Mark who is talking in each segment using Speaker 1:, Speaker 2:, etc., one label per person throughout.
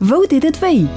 Speaker 1: Wou deet et wéi?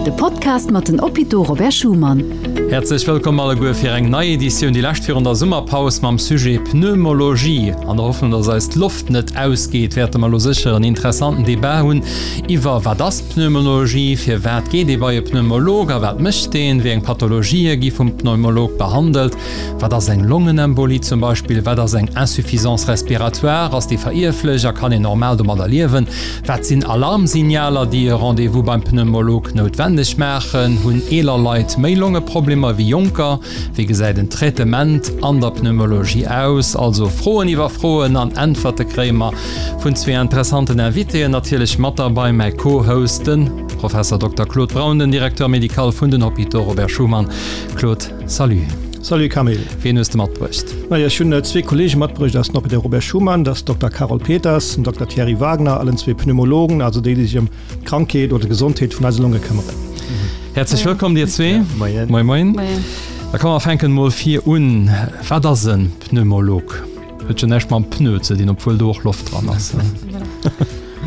Speaker 1: De Podcast mat den Hôpitaux Robert Schuman.
Speaker 2: Häerzlech wëllkomm alleguer fir eng nei Editioun, déi lescht virun der Summerpaus mam Sujet Pneumologie. An der Hoffnung, dass eis d'Loft net ausgeet, wäerte mer elo sécher en interessanten Debat hunn iwwer, Wat ass Pneumologie? Firwat geet ee bei e Pneumolog a wat mécht deen? Wéi eng Pathologië gi vum Pneumolog behandelt? Wat ass eng Longenembolie zum Beispill? Wat ass eng Insuffisance respiratoire? Ass déi verierflech a kann een normal domadder liewen? Wat sinn Alarmsignaler, déi e Rendez-vous beim Pneumolog noutwenneg maachen? Hunn eeler Leit méi Longeproblemer wéi jonker? Wéi gesäit en Traitement an der Pneumologie aus? Also Froen iwwer Froen an Äntwerte kréie mer vun zwee interessanten Invitéen. Natierlech mat derbei mäi Co-Host, de Professor Dokter Claude Braun, den Directeur médical vun den Hôpitaux Robert Schuman. Claude, salut.
Speaker 3: Salut Camille.
Speaker 2: Wien hues de matbruecht?
Speaker 3: Majo, ech hunn zwee Kollege matbruecht aus den Hôpitaux Robert Schuman, dat ass Dokter Carole Peters an Dokter Thierry Wagner, allen zwee Pneumologen, also déi, déi sech ëm d'Krankheet oder d'Gesondheet vun eise Longe këmmeren.
Speaker 2: Häerzlech wëllkomm dir zwee.
Speaker 4: Moien.
Speaker 2: Moien, moien. Moien. Da komm mer fänken mol vir un. Wat ass en Pneumolog? Huet jo näischt mam Pneu ze dinn, obwuel do och Loft dran ass.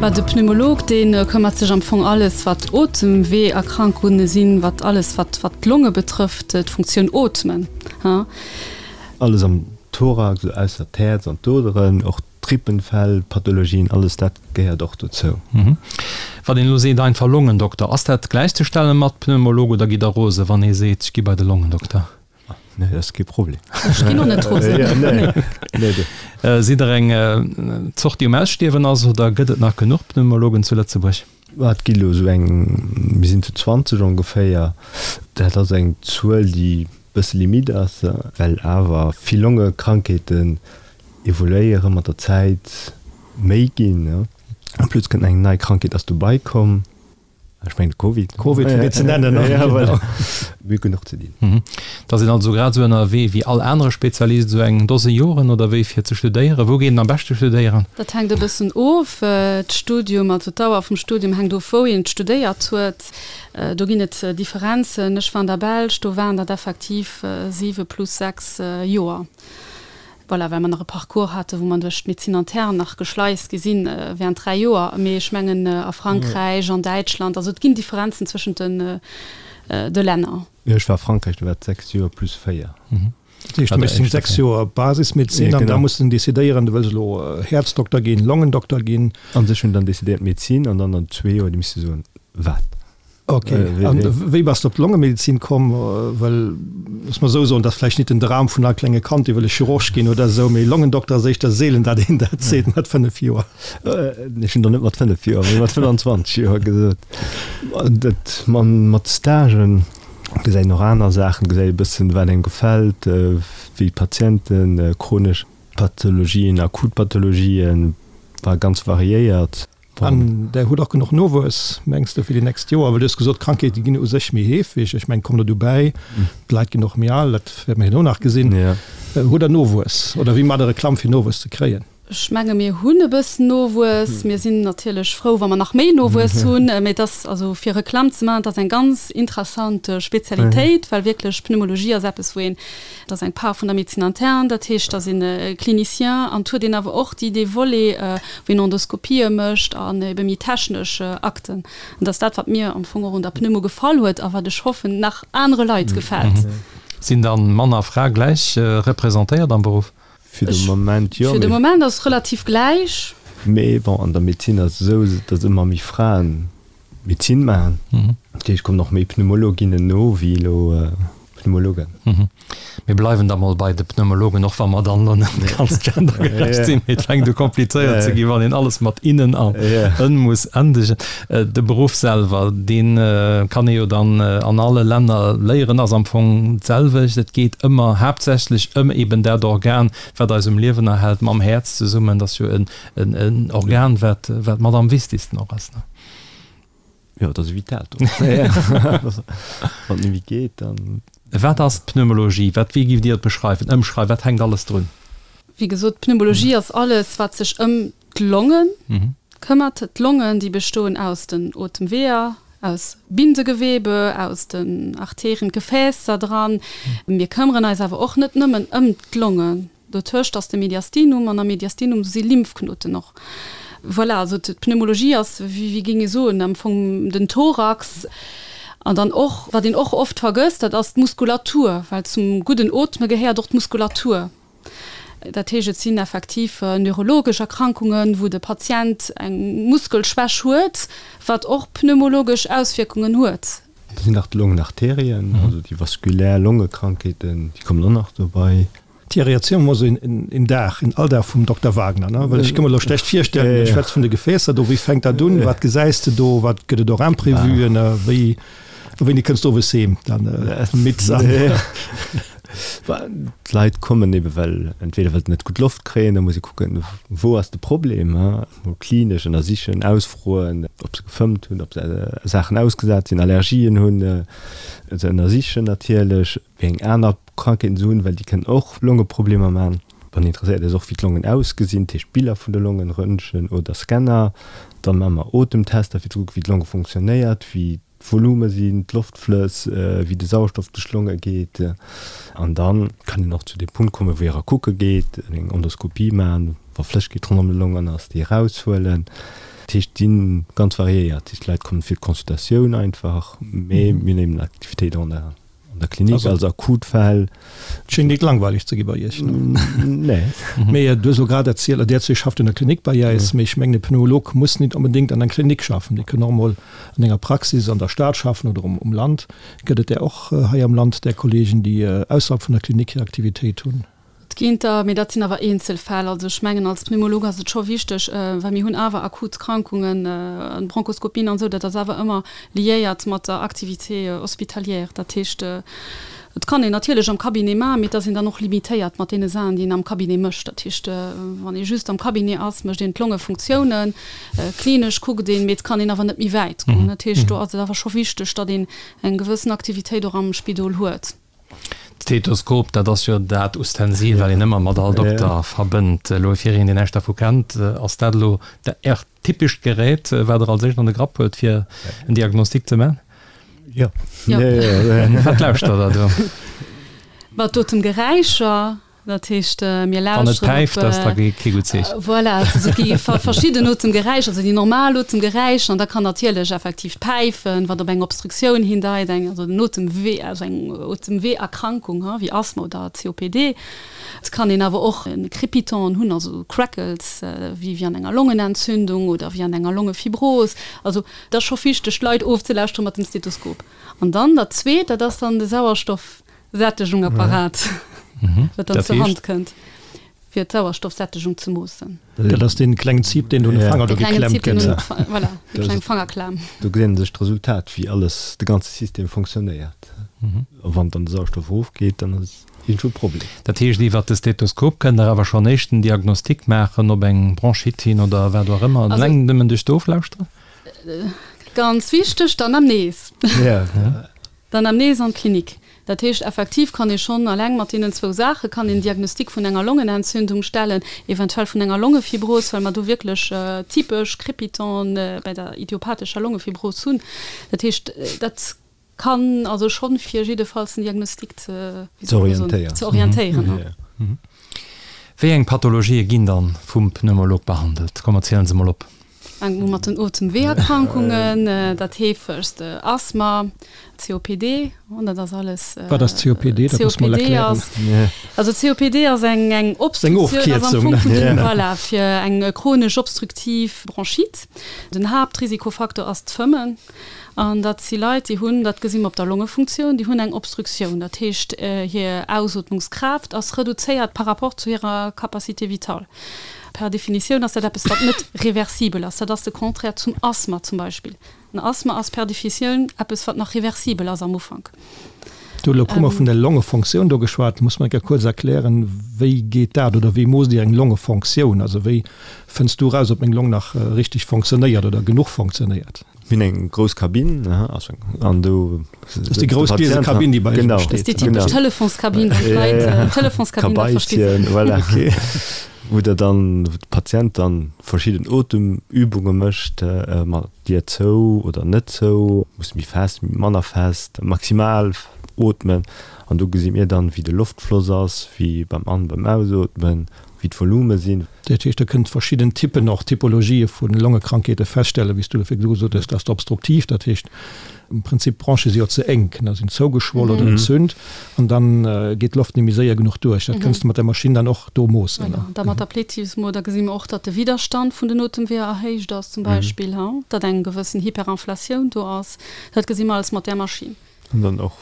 Speaker 5: Bah, de Pneumolog, dee këmmert sech am Fong alles, wat Otemweeërkrankunge sinn, wat alles, wat, wat d'Longe betrëfft, d'Funktioun Ootmen, ha.
Speaker 4: Alles am Thorax, esou ausser d'Häerz an d'Oderen, och d'Rippenfell, Pathologien, alles dat gehéiert och dozou.
Speaker 2: Wann een elo seet einfach Longendokter, ass dat gläichzestelle mat Pneumolog oder gitt Der rose wann ee seet, ech gi bei de Longendokter?
Speaker 4: Nee, dat ass kee Problem.
Speaker 5: Ech ginn och net rosen.
Speaker 4: Nee,
Speaker 2: nee. Sidd Der eng Zort, déi um Ausstierwen ass oder gëtt et nach genuch Pneumologen zu Lëtzebuerg?
Speaker 4: Et gi elo esou eng, mir sinn zu 20 ongeféier. Dat ass eng Zuel, déi e bësse limite ass, well awer vill Longekrankheeten evoluéiere mat der Zäit, méi ginn. En plus kënnt eng nei Krankheet ass dobei komm. Ech mengen de Covid.
Speaker 3: Covid fir net ze nennen.
Speaker 4: Ja, voilà. Mir hu genuch ze dinn.
Speaker 2: Da sinn also grad esou ënnerwee wéi all anere Spezialist, esou eng Dose Joren oder wéi fir ze studéieren. Wou geet een am beschte studéieren?
Speaker 5: Dat hänkt e bëssen of. D'Studium, also d'Dauer vum Studium hänkt of wou een studéiert huet. Do ginn et Differenzen. Ech war an der Belsch, do waren dat effektiv siwe plus 6 Joer. Voilà, well mer nach e Parcours haten, wou mer duerch d'Médecine interne nach geschleist gi sinn während 3 Joer. Mee ech mengen a Frankräich, an Däitschland, also et ginn Differenzen zwëschent den de Länner.
Speaker 4: Jo, ech war a Frankräich, do war et 6 Joer plus 4.
Speaker 3: Dat heescht, du méchs deng 6 Joer Basismedezin an da muss de decidéieren, du wëlls elo Häerzdokter ginn, Longendokter ginn.
Speaker 4: An ech hunn dann decidéiert Medezin an dann an zwee Joer, du misst soen, wat.
Speaker 3: Ok, an wéi bass de op d'Longemedezin komm? Well, looss mer esou soen, dat ass vläicht nit den Dram vun all klenge Kand, dee wëll e Chirurg ginn oder esou, mee Longendokter ass éischter seelen, dat een dat seet mat 5 Joer.
Speaker 4: Ech hunn der net mat 5 Joer, mee mat 25 Joer gesot. Dat mat Stagen gesäit een och aner Saachen, gesäit e bëssen, wat engem gefält, wéi d'Patienten, chronesch Pathologien, akut Pathologien, war ganz variéiert.
Speaker 3: An Der hutt och genuch Nowuess, mengs de, fir déi nächst Joer? Well du hues gesot, d'Krankheete ginn u sech méi heefeg. Ech mengen, et kommt der dobäi, d'Leit ginn och méi al, dat wäerte mer herno nach gesinn. Hutt Der Nowuess oder wéi maacht Der Reklamm, fir Nowuess ze kréien?
Speaker 5: Ech menge mir hunn e bëssen Nowuess. Mir sinn natierlech frou, wa mer nach méi Nowuess hunn. Mee et ass, also fir Reklamm ze maachen, et ass eng ganz interessant Spezialitéit, well wierklech Pneumologie ass eppes, wou een Dat ass eng Part vun der Médecine interne, dat heescht, dat sinn Clinicien an et huet een awer och déi, dee Volet, wou een Endoskopië mécht an ebe méi technesch Akten. An dat ass dat, wat mir am Fong och un der Pneumo gefall huet a wat ech hoffen, nach anere Leit gefält.
Speaker 2: Sinn dann Mann a Fra gläich representéiert am Beruff?
Speaker 4: Fir de Moment jo.
Speaker 5: Fir de Moment ass et relativ gläich.
Speaker 4: Mee bon, an der Medezin ass et esou, datt ëmmer méi Fraen Medezin maachen. Dat heescht, et kommen och méi Pneumologinnen no wéi elo Pneumologen.
Speaker 2: Mir bleiwen da mol bei de Pneumologen, och wa mer dann elo net ganz gendergerecht sinn. Mee et fänkt u komplizéiert ze ginn, wann een alles mat innen an en muss endegen. De Beruff selwer, dee kann ee jo dann an alle Länner léieren, ass am Fong d'selwecht. Et geet ëmmer haaptsächlech ëm eben dat Organ, wat eis um Liewen erhält, mam Häerz zesummen. Dat ass jo en Organ, wat mat am wichtigsten och ass.
Speaker 4: Jo, dat ass e vitaalt Organ. Wann et net méi geet, dann.
Speaker 2: Wat ass d'Pneumologie? Wat, wéi giff Dir et beschreiwen, ëmschreiwen? Wat hänkt alles drun?
Speaker 5: Wéi gesot, d'Pneumologie ass alles, wat sech ëm d'Longe këmmert. D'Longen, déi bestoen aus den Otemweeër, aus Bindegewebe, aus den Arterien, d'Gefäässer dran. Mir këmmeren eis awer och net nëmmen ëm d'Longen. Dotëscht ass de Mediastinum an am Mediastinum si Lymphknoten och. Voilà, also d'Pneumologie ass, wéi wéi géing ee soen, am Fong den Thorax. An dann och, wat een och oft vergësst, dat ass d'Muskulatur, well zum gudden Ootme gehéiert och d'Muskulatur. Dat heescht, et sinn effektiv neurologesch Erkrankungen, wou de Patient eng Muskelschwäch huet, wat och pneumologesch Auswierkungen huet.
Speaker 4: Da sinn nach d'Longenarterien, also déi vaskulär Longekrankheeten, déi kommen och nach dobei.
Speaker 3: Thierry, erziel mer mol esou een Dag, een Alldag vum Dokter Wagner, ne? Well ech ka mer elo schlecht virstellen, du schwätz vun de Gefäässer do, wéi fänkt dat un, wat gesäis de do, wat gëtt et och Imprévuen, wéi, wéini kënns du owes heem dann midd an?
Speaker 4: D'Leit kommen ebe well entweder well se net gutt Loft kréien, da muss ee kucken, wou ass de Problem, mol klinesch ënnersichen, ausfroen, ob se gefëmmt hunn, ob se Saachen ausgesat sinn, Allergien hunn, se ënnersichen natierlech. Wéi eng aner Krankheeten se hunn, well déi kënnen och Longeproblemer man. Wann een interesséiert ass och wéi d'Longen ausgesinn, dat heescht Biller vun de Longen, Röntgen oder Scanner. Dann maache mer Otemtester fir ze kucken wéi d'Longe funktionéiert, wéi d'Volume sinn, d'Loftflëss, wéi de Sauerstoff duerch d'Longe geet. An dann kann een och zu deem Punkt kommen, wou ee era kucke geet, eng Endoskopie maachen, wa Flëssegkeet ronderëm de Longen ass, déi eraushuelen. Dat heescht, déi sinn ganz variéiert. Dat heescht, d'Leit kommen fir d'Consultatioun einfach, mee mir hunn eben Aktivitéit an der An der Klinik also, als Akutfäll.
Speaker 3: Et schéngt net langweileg ze gi bei Iech.
Speaker 4: Nee.
Speaker 3: Mee du hues elo grad erzielt, der zwee schafft an der Klinik bei äis, mee ech mengen e Pneumolog muss nit onbedéngt an eng Klinik schaffen. Dee kënn och emol an enger Praxis an der Stad schaffen oder um Land. Gëtt et där och hei am Land, där Kollegen, déi ausserhalb vun der Klinik hir Aktivitéit hunn?
Speaker 5: Et ginn der, mee dat sinn awer Eenzelfäll. Also ech mengen, als Pneumolog ass et scho wichteg, well mir hunn awer akut Krankungen, Bronchoskopien an esou, dat ass awer ëmmer liéiert mat der Activité hospitalière. Dat heescht, et kann een natierlech am Cabinet maachen, mee et ass een dann och limitéiert mat deene Saachen, déi een am Cabinet mécht. Dat heescht, wann ee just am Cabinet ass, mécht een d'Longefunktiounen, klinesch kuckt een, mee et kann een awer net méi wäit goen. Dat heescht, do ass et awer scho wichteg, datt een eng gewëssen Aktivitéit och am Spidol huet.
Speaker 2: D'Stethoskop, dat ass jo dat Ustensil, wat een ëmmer mat all Dokter verbënnt. Elo fir een, deen näischt dervu kennt, ass dat elo Äert typescht Gerät, wat Der als éischt an de Grapp huelt, fir en Diagnostic ze man?
Speaker 4: Jo.
Speaker 2: Wat lauschtert Der do?
Speaker 5: Mat Otemgeräischer. Dat heescht, mir lauschteren op.
Speaker 2: Wann et päift, ass da kee gutt Zeechen.
Speaker 5: Voilà, also et gi verschidden Otemgeräischer, also déi normal Otemgeräischer, an da kann natierlech effektiv d'Päifen, wat op eng Obstruktioun hindeit, eng, also en Otemwee, also eng Otemweeërkrankung, wéi Asthma oder COPD. Et kann een awer och e Crépitant hunn, also Crackles, wéi an enger Longenentzündung oder wéi an enger Longefibros. Also et ass scho wichteg, d'Leit ofzelauschteren mat dem Stethoskop. An dann dat Zweet, dat ass dann de Sauerstoff. Sättegungapparat, wat dann zur Hand kënnt, fir d'Sauerstoffsättegung ze moossen.
Speaker 3: Dat ass dee klengen Zip, deen do un de Fanger do geklemmt gëtt.
Speaker 5: Voilà, déi kleng Fangerklam.
Speaker 4: Do gesäit ee sech d'Resultat, wéi alles, de ganze System fonctionnéiert. A wann dann de Sauerstoff erofgeet, dann ass iergendwou e Problem.
Speaker 2: Dat heescht, iwwert de Stethoskop kënnt Der awer schonn éischten Diagnostic maachen op eng Bronchite hin oder wat och ëmmer, eleng nëmmen duerch d'Oflauschteren?
Speaker 5: Ganz wichteg, d'Anamnese. D'Anamnese an d'Klinik. Dat heescht, effektiv kann ee schonn eleng mat deenen zwou Saache kann een Diagnostic vun enger Longenentzündung stellen, eventuell vun enger Longefibros, well mer do wierklech typesch Crépitanten bei der idiopathescher Longefibros hunn. Dat heescht, dat kann also schonn fir jiddefalls den Diagnostic ze, wéi soll ech soen, ze orientéieren.
Speaker 2: Wéi eng Pathologië ginn dann vum Pneumolog behandelt? Komm, erzielen se mol op.
Speaker 5: Fänkt u mat den Otemweeërkrankungen, dat heefegst Asthma, COPD, dat ass alles.
Speaker 3: Wat ass COPD? Dat muss mol erklären.
Speaker 5: Also COPD ass eng eng Obstruktioun, ass am Fong vun den, voilà, fir eng chronesch obstruktiv Bronchite. Den Haaptrisikofaktor ass d'Fëmmen. An dat si Leit, déi hunn, dat gesi mer op der Longefunktioun, déi hunn eng Obstruktioun. Dat heescht, hir Ausootmungskraaft ass reduzéiert par rapport zu hirer Capacité vitale. Per Definitioun ass dat eppes, wat net reversibel ass. Dat ass de Contraire zum Asthma zum Beispill. En Asthma ass per Defitioun eppes, wat nach reversibel ass am Ufank.
Speaker 3: Du huet elo e puermol vun der Longefonktioun do geschwat. Muss mer eng Kéier kuerz erklären, wéi geet dat oder wéi moosst Dir eng Longefonktioun? Also wéi fënns du eraus, ob meng Long nach richteg fonctionnéiert oder genuch fonctionnéiert?
Speaker 4: Mir hunn eng grouss Kabinn, an do.
Speaker 3: Dat ass déi grouss gliese Kabinn, déi bei Iech
Speaker 5: steet. Dat ass déi typesch Telefonskabinn, wou d'Leit, Telefonskabinn, dat versti se.
Speaker 4: Kabeibchen, voilà. Wou der dann, wou de Patient dann verschidden Otemübunge mécht, mat Dier zou oder net zou, muss méi fest, manner fest, maximal ootmen. An do gesi mir dann, wéi de Loftfloss ass, wéi beim An-, beim Ausootmen. wéi d'Volume sinn.
Speaker 3: Dat heescht, Der kënnt verschidden Typpen, och Typologië vu Longekrankheete feststellen, wéi s du elo virdu gesot hues, dass d'obstruktiv, dat heescht am Prinzip d'Bronche si jo ze enk, ne, sinn zougeschwoll oder entzünt an dann geet d'Loft net méi séier genuch duerch. Dat kënns de mat der Maschinn dann och do moossen, ne?
Speaker 5: Voilà, da mat der Plethysmo, da gesi mer och, datt de Widderstand vun den Otemweeër erhéicht ass zum Beispill, datt eng gewëssen Hyperinflatioun do ass. Dat gesi mer alles mat där Maschinn.
Speaker 4: An dann och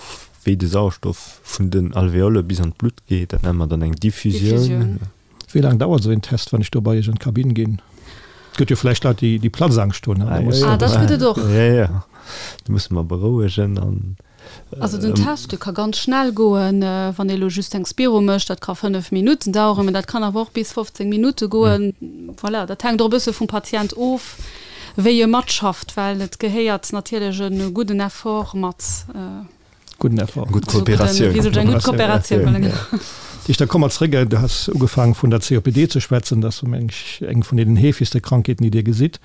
Speaker 4: wéi de Sauerstoff vun den Alveole bis an d'Blutt geet, dat nenne mer dann eng Diffusioun.
Speaker 3: Wéi laang dauert esou een Test, wann ech do bei Iech an d'Kabinn ginn? Et gëtt jo vläicht Leit, déi Platzangscht hunn.
Speaker 5: Ah, dat gëtt et och.
Speaker 4: Jo, jo, do musse mer berouegen an.
Speaker 5: Also den Test, dee ka ganz schnell goen, wann ee lo just eng Spiro mécht, dat ka 5 Minutten daueren, mä dat kann awer och bis 15 Minutte goen. Voilà, dat hänkt och e bësse vum Patient of, wéi e matschafft, well et gehéiert natierlech e gudden Effort mat.
Speaker 3: Gudden Effort.
Speaker 4: Gutt Kooperatioun.
Speaker 5: Wéi sot ech, eng gutt Kooperatioun, voilà, genau.
Speaker 3: Dich, da komme mer zréck, du has ugefaangen vun der COPD ze schwätzen, dat ass meng ech eng vun deenen heefegste Krankheeten, déi Dir gesitt.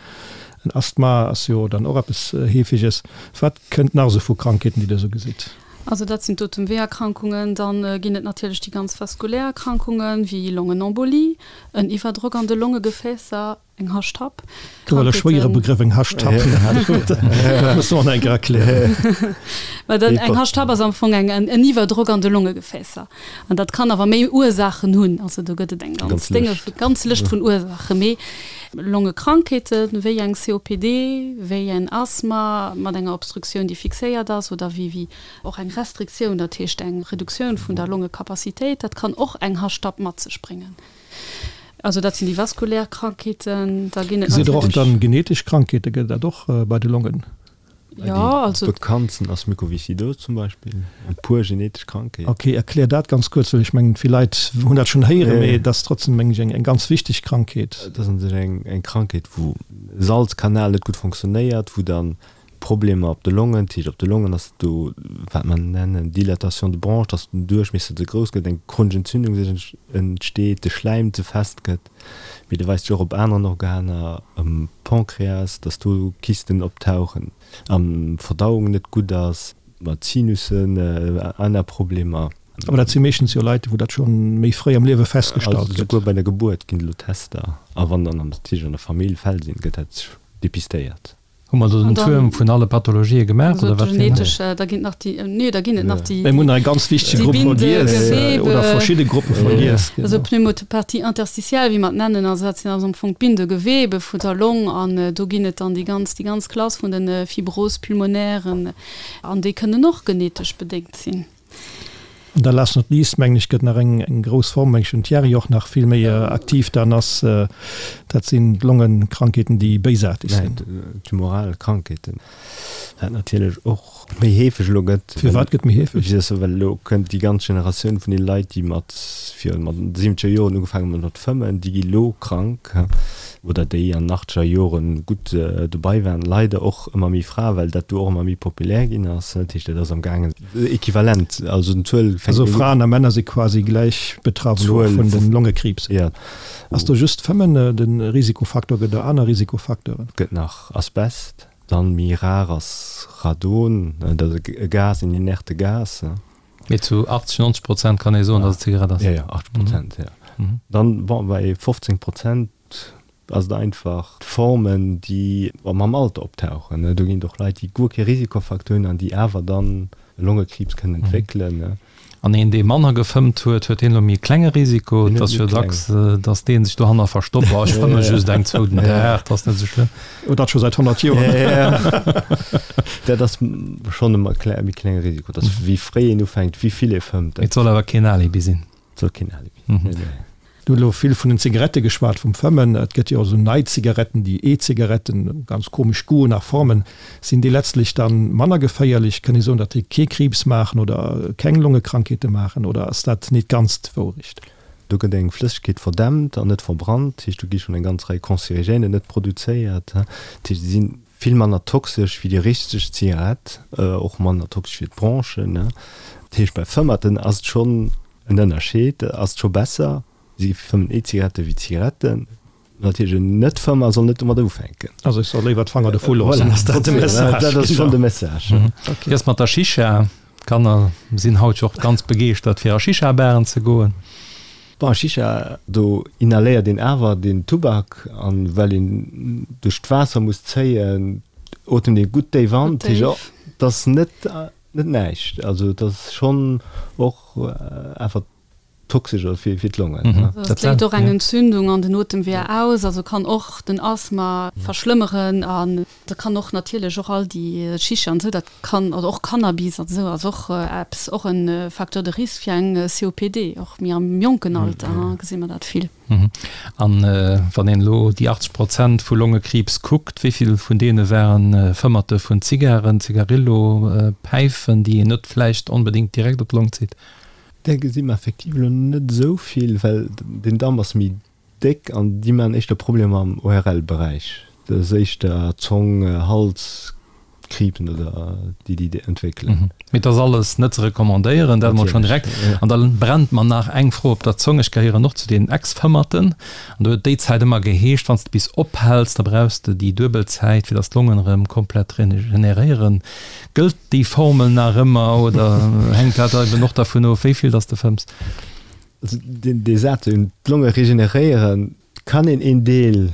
Speaker 3: En Asthma ass jo dann och eppes Heefeges. Wat kënnt nach esou vu Krankheeten, déi Der esou gesitt?
Speaker 5: Also dat sinn d'Otemweeërkrankungen. Dann ginn et natierlech déi ganz vaskulär Erkrankungen, wéi Longenembolie, en Iwwerdrock an de Longegefäässer, Eng Hashtapp.
Speaker 3: Do war e schwéiere Begrëff, eng Hashtapp. Dat muss du och nach eng Kéier erklären.
Speaker 5: Mä dat, eng Hashtapp ass am Fong eng, en Iwwerdrock an de Longegefäässer. An dat kann awer méi Ursaachen hunn. Also do gëtt et eng ganz Dénge, ganz Lëscht vun Ursaachen. Mee Longekrankheeten, wéi eng COPD, wéi en Asthma mat enger Obstruktioun, déi fixéiert ass, oder wéi, wéi och eng Restriktioun, dat heescht eng Reduktioun vun der Longecapacitéit, dat kann och eng Hashtapp mat sech bréngen. Also dat sinn déi vaskulär Krankheeten. Da ginn et
Speaker 3: Gesitt Der och dann genetesch Krankheete, gëtt et dat och bei de Longen?
Speaker 5: Jo, also.
Speaker 4: Déi bekanntsten ass Mukoviscidose zum Beispill, eng puer genetesch Krankheet.
Speaker 3: Ok, erklär dat ganz kuerz, well ech mengen vill Leit hunn dat schonn héieren, mee et ass trotzdem meng ech eng ganz wichteg Krankheet.
Speaker 4: Et ass un sech eng Krankheet wou e Salzkanal net gutt fonctionnéiert, wou dann Problemer op de Longen, dat heescht op de Longen ass do wat mer nennen Dilatation de bronches, dass den Duerchmiesser ze grouss gëtt, eng chronesch Entzündung sech entsteet, de Schläim ze fest gëtt, mee de weist sech och op aneren Organer, am Pancréas, dass do Kysten optauchen, an d'Verdauung net gutt ass, mat Sinussen, aner Problemer.
Speaker 3: Awer dat si meeschtens jo Leit, wou dat scho méi fréi am Liewe festgestallt
Speaker 4: gëtt. Also souguer bei der Gebuert ginn et elo Tester, a wann dann natierlech an der Famill Fäll sinn, gëtt dat depistéiert.
Speaker 2: Hu mer do den Tuerm vun alle Pathologië gemaach oder wat fir
Speaker 5: en? Da ginn et nach déi, nee, da ginn et nach déi.
Speaker 3: Mir hunn nach e ganz wichtege Grupp vergiess oder verschidde Gruppe vergiess.
Speaker 5: Also Pneumopathie interstitielle, wéi mer et nennen, also dat sinn also am Fong d'Bindegewebe vun der Long an do ginn et dann déi ganz, déi ganz Klass vun de Fibroses pulmonairen an déi kënnen och genetesch bedéngt sinn.
Speaker 3: An da last not least, mengen ech, gëtt nach eng grouss Form, mengen ech, den Thierry och nach vill méi aktiv dann ass, dat sinn d'Longenkrankheeten, déi béisaarteg sinn.
Speaker 4: Tumoral Krankheeten, wat natierlech och méi heefeg elo gëtt.
Speaker 3: Firwat gëtt méi heefeg?
Speaker 4: Well elo kënnt déi ganz Generatioun vun deene Leit, déi mat virun mat siwwenzeger Joren ugefaangen hunn mat fëmmen, déi gi elo krank oder déi an den achtzeger Joren gutt dobei waren. Leider och ëmmer méi Frae, well dat do och ëmmer méi populär ginn ass. Dat heescht, dat ass am gaangen Equivalent, also den Zuel
Speaker 3: fänkt. Also Fraen a Männer si quasi gläich betraff elo vun den Longekriibs.
Speaker 4: Jo.
Speaker 3: Ass do just d'Fëmmen de Risikofaktor, gëtt et aner Risikofacteuren?
Speaker 4: Gëtt nach Asbest, dann méi rar ass Radon, dat ass e Gas, en inerte Gas.
Speaker 2: Mee zu 80, 90 Prozent kann ee soen, datt et Zigarett ass.
Speaker 4: Jo, jo, 80 Prozent, jo. Dann, bon, bei 15 Prozent ass et einfach d'Formen, déi mam Alter optauchen. Do ginn et och Leit, déi guer kee Risikofacteur hunn an déi awer dann e Longekriibs kënnen entwéckelen.
Speaker 2: An een, dee manner gefëmmt huet, huet deen elo méi e klenge Risiko? Et ass jo dacks, datt dee sech dohanner verstoppt, Oh, ech fëmme just eng, zwou den Dag, dat ass net esou schlëmm.
Speaker 3: Oh, dat scho säit 100 Joer.
Speaker 4: Dat ass schonn e méi klenge Risiko. Dat ass, wéi fréi een ufänkt, wéi vill ee fëmmt.
Speaker 2: Et soll awer keen Alibi sinn.
Speaker 4: Et soll keen Alibi sinn, nee, nee.
Speaker 3: Du hutt elo vill vun den Zigarette geschwat, vum Fëmmen. Et gëtt jo och esou nei Zigaretten, déi E-Zigaretten, ganz komesch Goûten a Formen. Sinn déi letztlech dann manner geféierlech? Kënn ee soen, datt déi kee Kriibs maachen oder keng Longekrankheete maachen oder ass dat nit ganz d'Wourecht?
Speaker 4: Do gëtt eng Flëssegkeet verdämpt an net verbrannt, dat heescht do gi schonn eng ganz Rei Cancérigènen net produzéiert. Dat heescht, se si vill manner toxesch wéi déi richteg Zigarett, och manner toxesch fir d'Bronchen. Dat heescht bei Fëmmerten ass et schonn En Ënnerscheed ass scho besser, si fëmmen E-Zigarette wéi Zigaretten. Natierlech en Net-Fëmmer soll net domat ufänken.
Speaker 3: Also ech soll léiwer d'Fanger dovu loossen,
Speaker 4: ass dat de Message? Dat ass schonn de Message.
Speaker 2: Wéi ass mat der Shisha? D'Kanner sinn haut jo och ganz begeeschtert fir a Shisha-Baren ze goen.
Speaker 4: Bon, Shisha, do inhaléiert een awer den Tubak an well een duerch d'Waasser muss zéien, otemt ee gutt déif an. Dat heescht, et ass net, net näischt. Also et ass schonn och awer toxesch oder fir, fir d'Longen.
Speaker 5: Et léist och eng Entzündung an den Otemweeër aus, also kann och den Asthma verschlëmmeren an da kann och natierlech och all déi Shisha an esou, dat kann, oder och Cannabis an esou ass och eppes, och e Facteur de risque fir eng COPD, och méi am jonken Alter gesi mer dat vill.
Speaker 2: An wann een elo déi 80 Prozent vu Longekriibs kuckt, wéi vill vun deene waren Fëmmerte vun Zigaren, Zigarillo, Päifen, déi een net vläicht onbedéngt direkt op d'Long zitt?
Speaker 4: Där gesi mer effektiv elo net esou vill, well den Damp ass méi déck an déi maachen éischter Problemer am ORL-Beräich. Dat ass éischter Zong, Hals, Kriibsen oder déi déi entwéckelen.
Speaker 2: Mee et ass alles net ze recommandéieren, dat emol schonn direkt. An da brennt mer nach eng Fro op der Zong. Ech gehéieren och zu den Ex-Fëmmerten an do huet déi Zäit ëmmer geheescht, wann s de bis ophäls, da brauchs de déi duebel Zäit, fir datt d'Longen erëm komplett regeneréieren. Gëllt déi Formel nach ëmmer oder hänkt dat eben och dervun of, wéi vill datt s de fëmms?
Speaker 4: Also dee Saz, d'Longe regeneréieren, kann een een Deel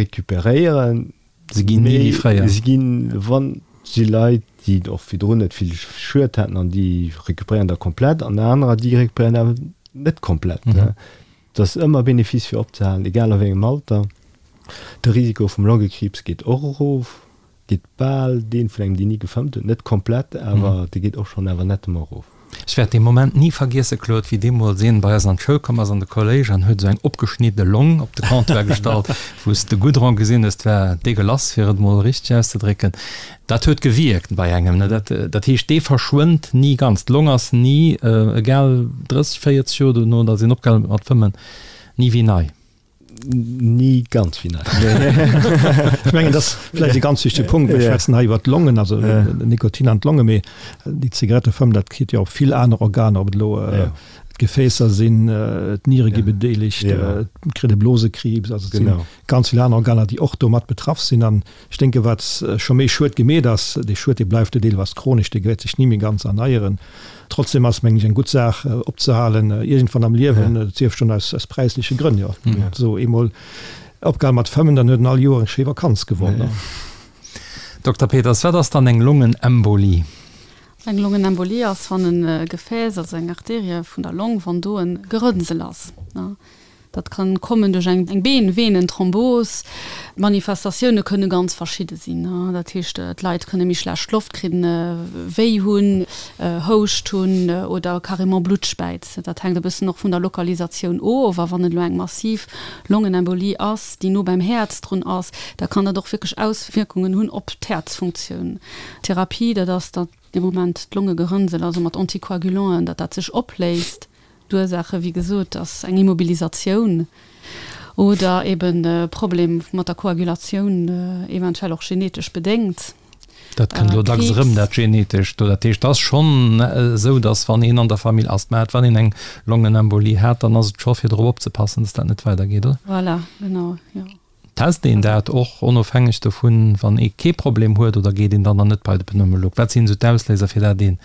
Speaker 4: recuperéieren.
Speaker 2: Se ginn ni wéi fréier.
Speaker 4: Se ginn, wann si Leit, déi och virdrun net vill Schued haten an déi recuperéieren da komplett an anerer, déi recuperéieren awer net komplett. Et ass ëmmer Benefice fir opzehalen, egal a wéi engem Alter. De Risiko vum Longekriibs geet och erof. Geet bal deen vun engem deen ni gefëmmt huet, net komplett, awer dee geet och schonn awer nettement erof.
Speaker 2: Ech wäert dee Moment ni vergiesse, Claude, wéi deemools een bei eis an d'Schoul komm ass, an de Kolléisch, an huet esou eng opgeschnidde Long op de Comptoir gestallt, wou s de Goudron gesinn hues. 't war degueulasse, fir et emol richteg auszedrécken. Dat huet gewierkt bei engem, ne? Dat, dat heescht, dee verschwënnt ni ganz. D'Long ass ni, egal 30, 40 Joer dono, datt een opgehal huet mat fëmmen, ni wéi nei.
Speaker 4: Ni ganz wéi nei.
Speaker 3: Ech mengen, dat ass vläicht e ganz wichtege Punkt. Mir schwätzen hei iwwert d'Longen, also den Nikotin an d'Longe, mee déi Zigarettefëmmen, dat kritt jo op vill aner Organer, ob et elo d'Gefäässer sinn, d'Niere gi bedeelegt, et kritt e Blosekriibs, also et si ganz vill aner Organer, déi och do mat betraff sinn. An ech denke wat scho méi Schued gemeet ass, dee Schued, dee bleift jo deelweis chronesch, dee wäert sech ni méi ganz erneieren. Trotzdem ass, mengen ech, eng gutt Saach opzehalen, iergendwann am Liewen, et sief schonn aus aus präisleche Grënn, jo. Esou eemol opgehal mat fëmmen, dann huet en all Joer eng schéi Vakanz gewonn.
Speaker 2: Dokter Peters, wat ass dann eng Longenembolie?
Speaker 5: Eng Longenembolie ass, wann e Gefääss, also eng Arterie vun der Long, wann do e Gerënnsel ass. Dat kann kommen duerch eng Been-Venen-Thrombos. D'Manifestatioune kënne ganz verschidde sinn. Dat heescht, d'Leit kënne méi schlecht Loft kridden, Wéi hunn, Houscht hunn oder carrément Blutt späizen. Dat hänkt e bëssen och vun der Lokalisatioun of. A wann et elo eng massiv Longenembolie ass, déi no beim Häerz drun ass, da kann dat och wierklech Auswierkungen hunn op d'Häerzfunktioun. D'Therapie, dat ass, datt dee Moment d'Longegerënnsel, also mat Anticoagulanten, datt dat sech opléist. D'Ursaache, wéi gesot, ass eng Immobilisatioun oder eben e Problem mat der Koagulatioun, eventuell och genetesch bedéngt.
Speaker 2: Dat kënnt elo dacks erëm, dat Genetescht do. Dat heescht, et ass schonn esou, datt wann een an der Famill Asthma hat, wann een eng Longenembolie hat, dann ass et scho fir drop opzepassen, datt dat net weidergeet, oder?
Speaker 5: Voilà, genau, jo.
Speaker 2: Test een dat och onofhängeg dovun, wann ee kee Problem huet, oder geet een dann dann net bei de Pneumolog? Wat sinn esou d'Ausléiser, fir dat ee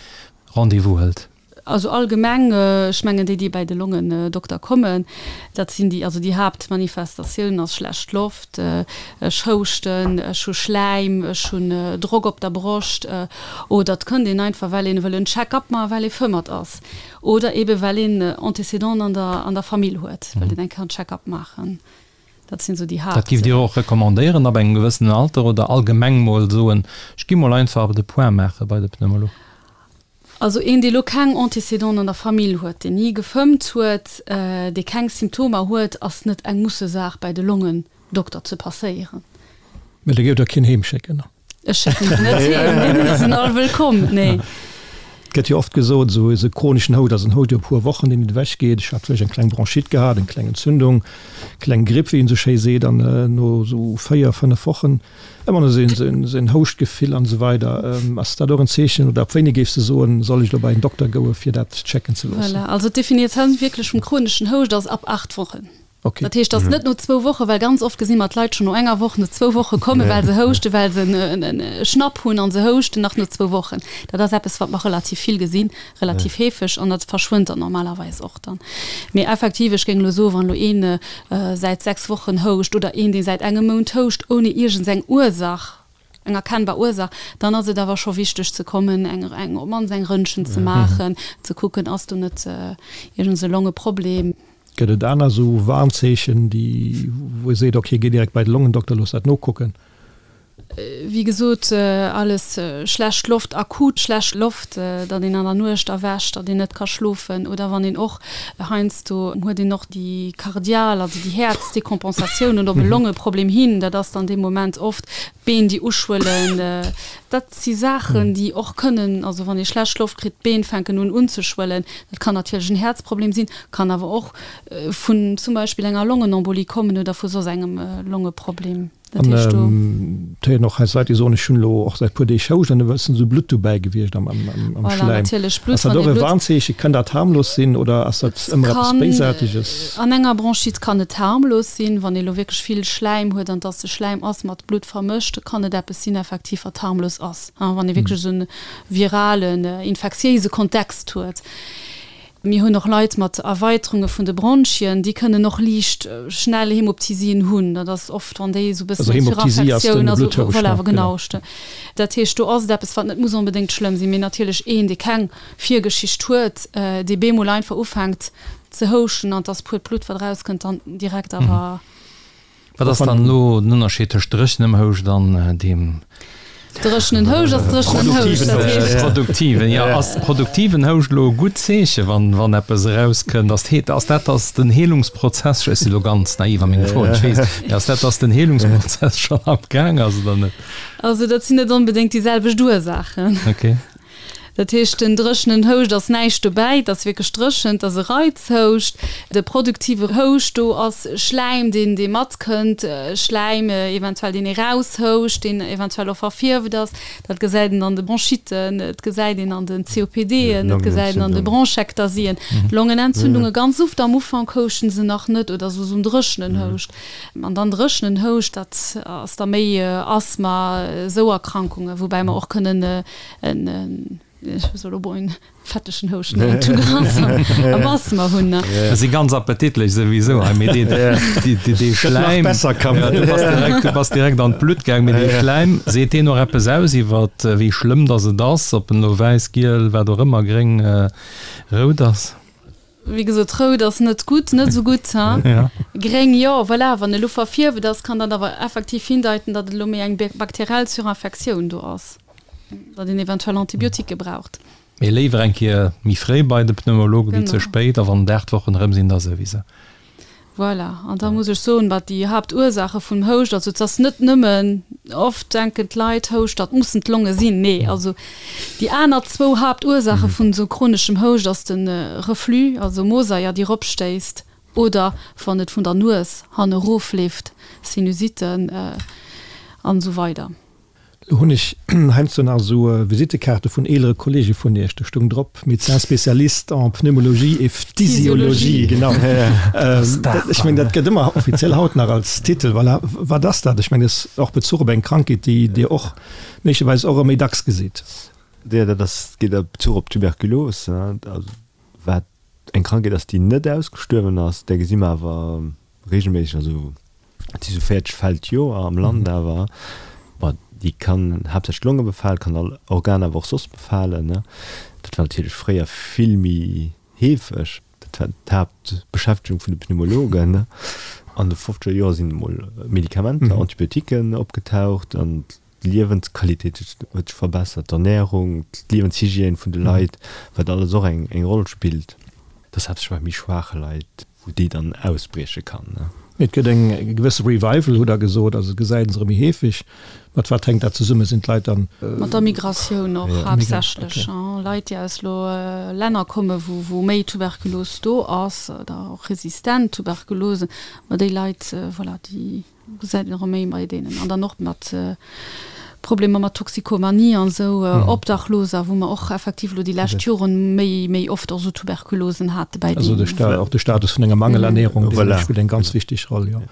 Speaker 2: Rendez-vous hëlt?
Speaker 5: Also allgemeng, ech mengen déi, déi bäi de Longendokter kommen, dat sinn déi, also déi Haaptmanifestatioun ass schlecht Loft, ech houschten, ech hu Schläim, ech hunn Drock op der Broscht oder et kënnt een einfach, well een wëll en Check-up maachen, well ee fëmmert ass oder eebe well een Antécédenten an der an der Famill huet, wëllt een eng Kéier en Check-up maachen. Dat sinn esou déi
Speaker 2: Haapt. Dat giff Dir och recommandéieren ab engem gewëssenen Alter oder allgemeng mol soen, ech gi mol einfach de Point maache bei de Pneumolog?
Speaker 5: Also een, dee lo keng Antécédenten an der Famill huet, deen ni gefëmmt huet, dee keng Symptomer huet, ass net eng Mussesaach bäi de Longendokter ze passéieren.
Speaker 3: Mä da géif Der keen heem schécken?
Speaker 5: Ech schécken se net heem, nee, nee, se sinn all wëllkomm, nee.
Speaker 3: Et gëtt jo oft gesot, esou e chroneschen Houscht ass en Houscht iwwer e puer Wochen, deen net ewech geet. Ech hat vläicht eng kleng Bronchite gehat, eng kleng Entzündung, kleng Gripp, wéi een esou schéi seet, an no esou 4, 5 Wochen Ëmmer nach esou en Houschtgefill an esou weider. Ass dat och en Zeechen oder ab wéini géifs de soen, soll ech elo bei en Dokter goe fir dat checken ze loossen?
Speaker 5: Voilà, also d'Definitioun wierklech vum chroneschen Houscht ass ab 8 Wochen.
Speaker 3: Okay.
Speaker 5: Dat heescht, dass net no zwou Woche, well ganz oft gesi mer d'Leit schonn no enger Woch, no zwou Woche kommen, well se houschten, well se en e Schnapp hunn an se houschten nach no zwou Wochen. Dat ass eppes, wat mer relativ vill gesinn, relativ heefeg an dat verschwënnt dann normalerweis och dann. Mee effektiv, ech géing elo soen, wann elo een säit 6 Wochen houscht oder een, dee säit engem Mount houscht, ouni iergendseng Ursach, eng erkennbar Ursach, dann ass et awer scho wichteg ze kommen, eng, eng, op d'mannst eng Röntgen ze maachen, ze kucken, ass do net iergends e Longeproblem.
Speaker 3: Gëtt et aner esou Warnzeechen, déi, wou ee seet, okay, géi direkt bei de Longendokter, looss dat nokucken?
Speaker 5: Wéi gesot, alles schlecht Loft, akut schlecht Loft, datt een an der Nuecht erwächt, datt een net ka schlofen oder wann een och heiansdo huet een och déi kardial, also déi Häerzdécompensatioun oder op e Longeproblem hin, dat ass dann dee Moment oft d'Been déi uschwëllen. Dat si Saachen, déi och kënnen, also wann ee schlecht Loft kritt, d'Been fänken un unzeschwëllen. Dat kann natierlech en Häerzproblem sinn, kann awer och vun zum Beispill enger Longenembolie kommen oder vu soss engem Longeproblem.
Speaker 3: Dat heescht do. An et héieren och heiansdo Leit, déi soen, ech hunn elo och säit puer Deeg Houscht an da e bëssen esou Blutt dobäi gewiescht am
Speaker 5: Voilà,
Speaker 3: Schläim.
Speaker 5: natierlech Blutt,
Speaker 3: Ass dat
Speaker 5: wann
Speaker 3: och
Speaker 5: ee
Speaker 3: e
Speaker 5: Blutt.
Speaker 3: Warnzeechen? Kann dat harmlos sinn oder ass dat
Speaker 5: Et
Speaker 3: ëmmer eppes
Speaker 5: kann,
Speaker 3: Béisaarteges?
Speaker 5: an enger Bronchite kann et harmlos sinn, wann ee elo wierklech vill Schläim huet an dass de Schläim ass mat Blutt vermëscht, kann et eppes sinn effektiv wat harmlos ass, wann ee wierklech esou e viralen, infektiéise Kontext huet. Mir hunn och Leit mat Erweiterunge vun de Bronchien, déi kënnen och liicht schnell Hämoptysien hunn. Dat ass oft, wann déi esou e bëssen eng Surinfektioun, also voilà, genau. Dat heescht, do ass et eppes, wat net muss onbedéngt schlëmm sinn, mee natierlech een, dee keng Virgeschicht huet, dee bemol einfach ufänkt ze houschten an et ass puert Blutt, wat erauskënnt, dann direkt awer.
Speaker 2: Wat ass dann elo den Ënnerscheed tëscht dréchenem Houscht an deem.
Speaker 5: Dréchenen Houscht ass dréchenen Houscht, dat heescht.
Speaker 2: Produktiven, jo. Ass produktiven Houscht elo e gutt Zeeche wann, wann eppes erauskënnt? Ass d'Hee, ass dat, dass den Heelungsprozess, ech si lo ganz naiv a menge Froen, ech weess, mee ass dat, dass den Heelungsprozess schonn am Gaang ass oder net?
Speaker 5: Also dat sinn net onbedéngt déi selwecht Ursaachen.
Speaker 2: Okay.
Speaker 5: Dat heescht, den dréchenen Houscht ass näischt dobäi, et ass wierklech dréchen, et ass e Reizhouscht. De produktive Houscht, do ass Schläim, deen, dee matkënnt, Schläim eventuell, deen ee raushouscht, deen eventuell och verfierft ass. Dat gesäit een an de Bronchitten, et gesäit een an den COPDen, et gesäit een an de Bronchektasien. Longenentzündunge, ganz oft am Ufank houschten se nach net oder sou en dréchenen Houscht. An dann dréchenen Houscht, dat ass da méi Asthma, esou Erkrankungen, woubäi mer och kënnen en, ech soll elo en fettegen Houscht nennen, tout gras am Asthma hunn.
Speaker 2: Dat si ganz appetitlech souwisou hei, mee dee, dee, dee, dee Schläim, ja, du bass direkt, du bass direkt an d'Blutt gaang, mee dee Schläim, seet deen och eppes aus iwwer wéi schlëmm datt et ass, ob en elo wäiss, giel, wat och ëmmer, gréng, rout ass?
Speaker 5: Wéi gesot, rout ass net gutt, net esou gutt, ha?
Speaker 2: Ja.
Speaker 5: Gréng, jo, voilà, wann elo verfierft ass, kann dat awer effektiv hindeiten, datt et elo méi eng bakteriell Surinfektioun do ass, datt een eventuell Antibiotiquë braucht.
Speaker 2: Mee léiwer eng Kéier méi fréi bei de Pneumologe wéi ze spéit, a wann et 8 Wochen erëm sinn, da souwisou.
Speaker 5: Voilà, an da muss ech soen, wat déi Haaptursaache vum Houscht, also et ass net nëmmen, oft denken d'Leit, Houscht, dat mussen d'Longe sinn. Nee, also déi aner zwou Haaptursaache vun esou chroneschem Houscht ass de Reflux, also Mosaier, déi eropstéisst, oder wann et vun der Nues hanne erofleeft, Sinusitten an esou weider.
Speaker 3: Lo hunn ech heiansdo nach esou Visittekaarte vun eelere Kollege vun Iech, do stoung drop, Médecin spécialiste en pneumologie et phtisiologie. Genau. Ech mengen, dat gëtt ëmmer offiziell haut nach als Titel. Voilà. Wat ass dat? Ech mengen, dat ass och Bezuch op eng Krankheet, déi Dir och méiglecherweis och ëmmer méi dacks gesitt.
Speaker 4: Jo, dat ass, geet a Bezuch op d'Tuberkulos, also wat eng Krankheet ass, déi net ausgestuerwen ass. Där gesi mer awer reegelméisseg, also Et si sou 40 Fäll d'Joer am Land awer. Bon, déi kann haaptsächlech d'Longe befalen, kann all Organ awer och soss befalen. Dat war natierlech fréier vill méi heefeg. Dat war d'Haaptbeschäftegung vun de Pneumologen. An de fofzeger Joer sinn emol Medikamenter, Antibiotiquen opgetaucht an d'Liewensqualitéit huet sech verbessert, d'Ernärung, d'Liewenshygiène vun de Leit, wat alles och eng Roll spillt. Dat ass haaptsächlech bei méi schwaache Leit. Wou déi dann ausbrieche kann.
Speaker 3: Et gëtt eng gewësse Revival, hutt Der gesot, also et gesäit een se erëm méi heefeg. Mat wat hänkt dat zesummen? Sinn d'Leit dann.
Speaker 5: Mat der Migratioun och haaptsächlech. Leit, déi aus elo Länner kommen, wou méi Tuberkulos do ass oder och resistent Tuberkulose, ma déi Leit, voilà, déi. Gesäit een erëm méi bei deenen. An dann och mat. Problemer mat Toxikomanie an esou, Obdachloser, wou mer och effektiv elo déi lescht Joren méi, méi oft och esou Tuberkulosen hate bäi
Speaker 3: deenen. Also och de Status vun enger Mangelernährung, dee spillt eng ganz wichteg Roll, jo.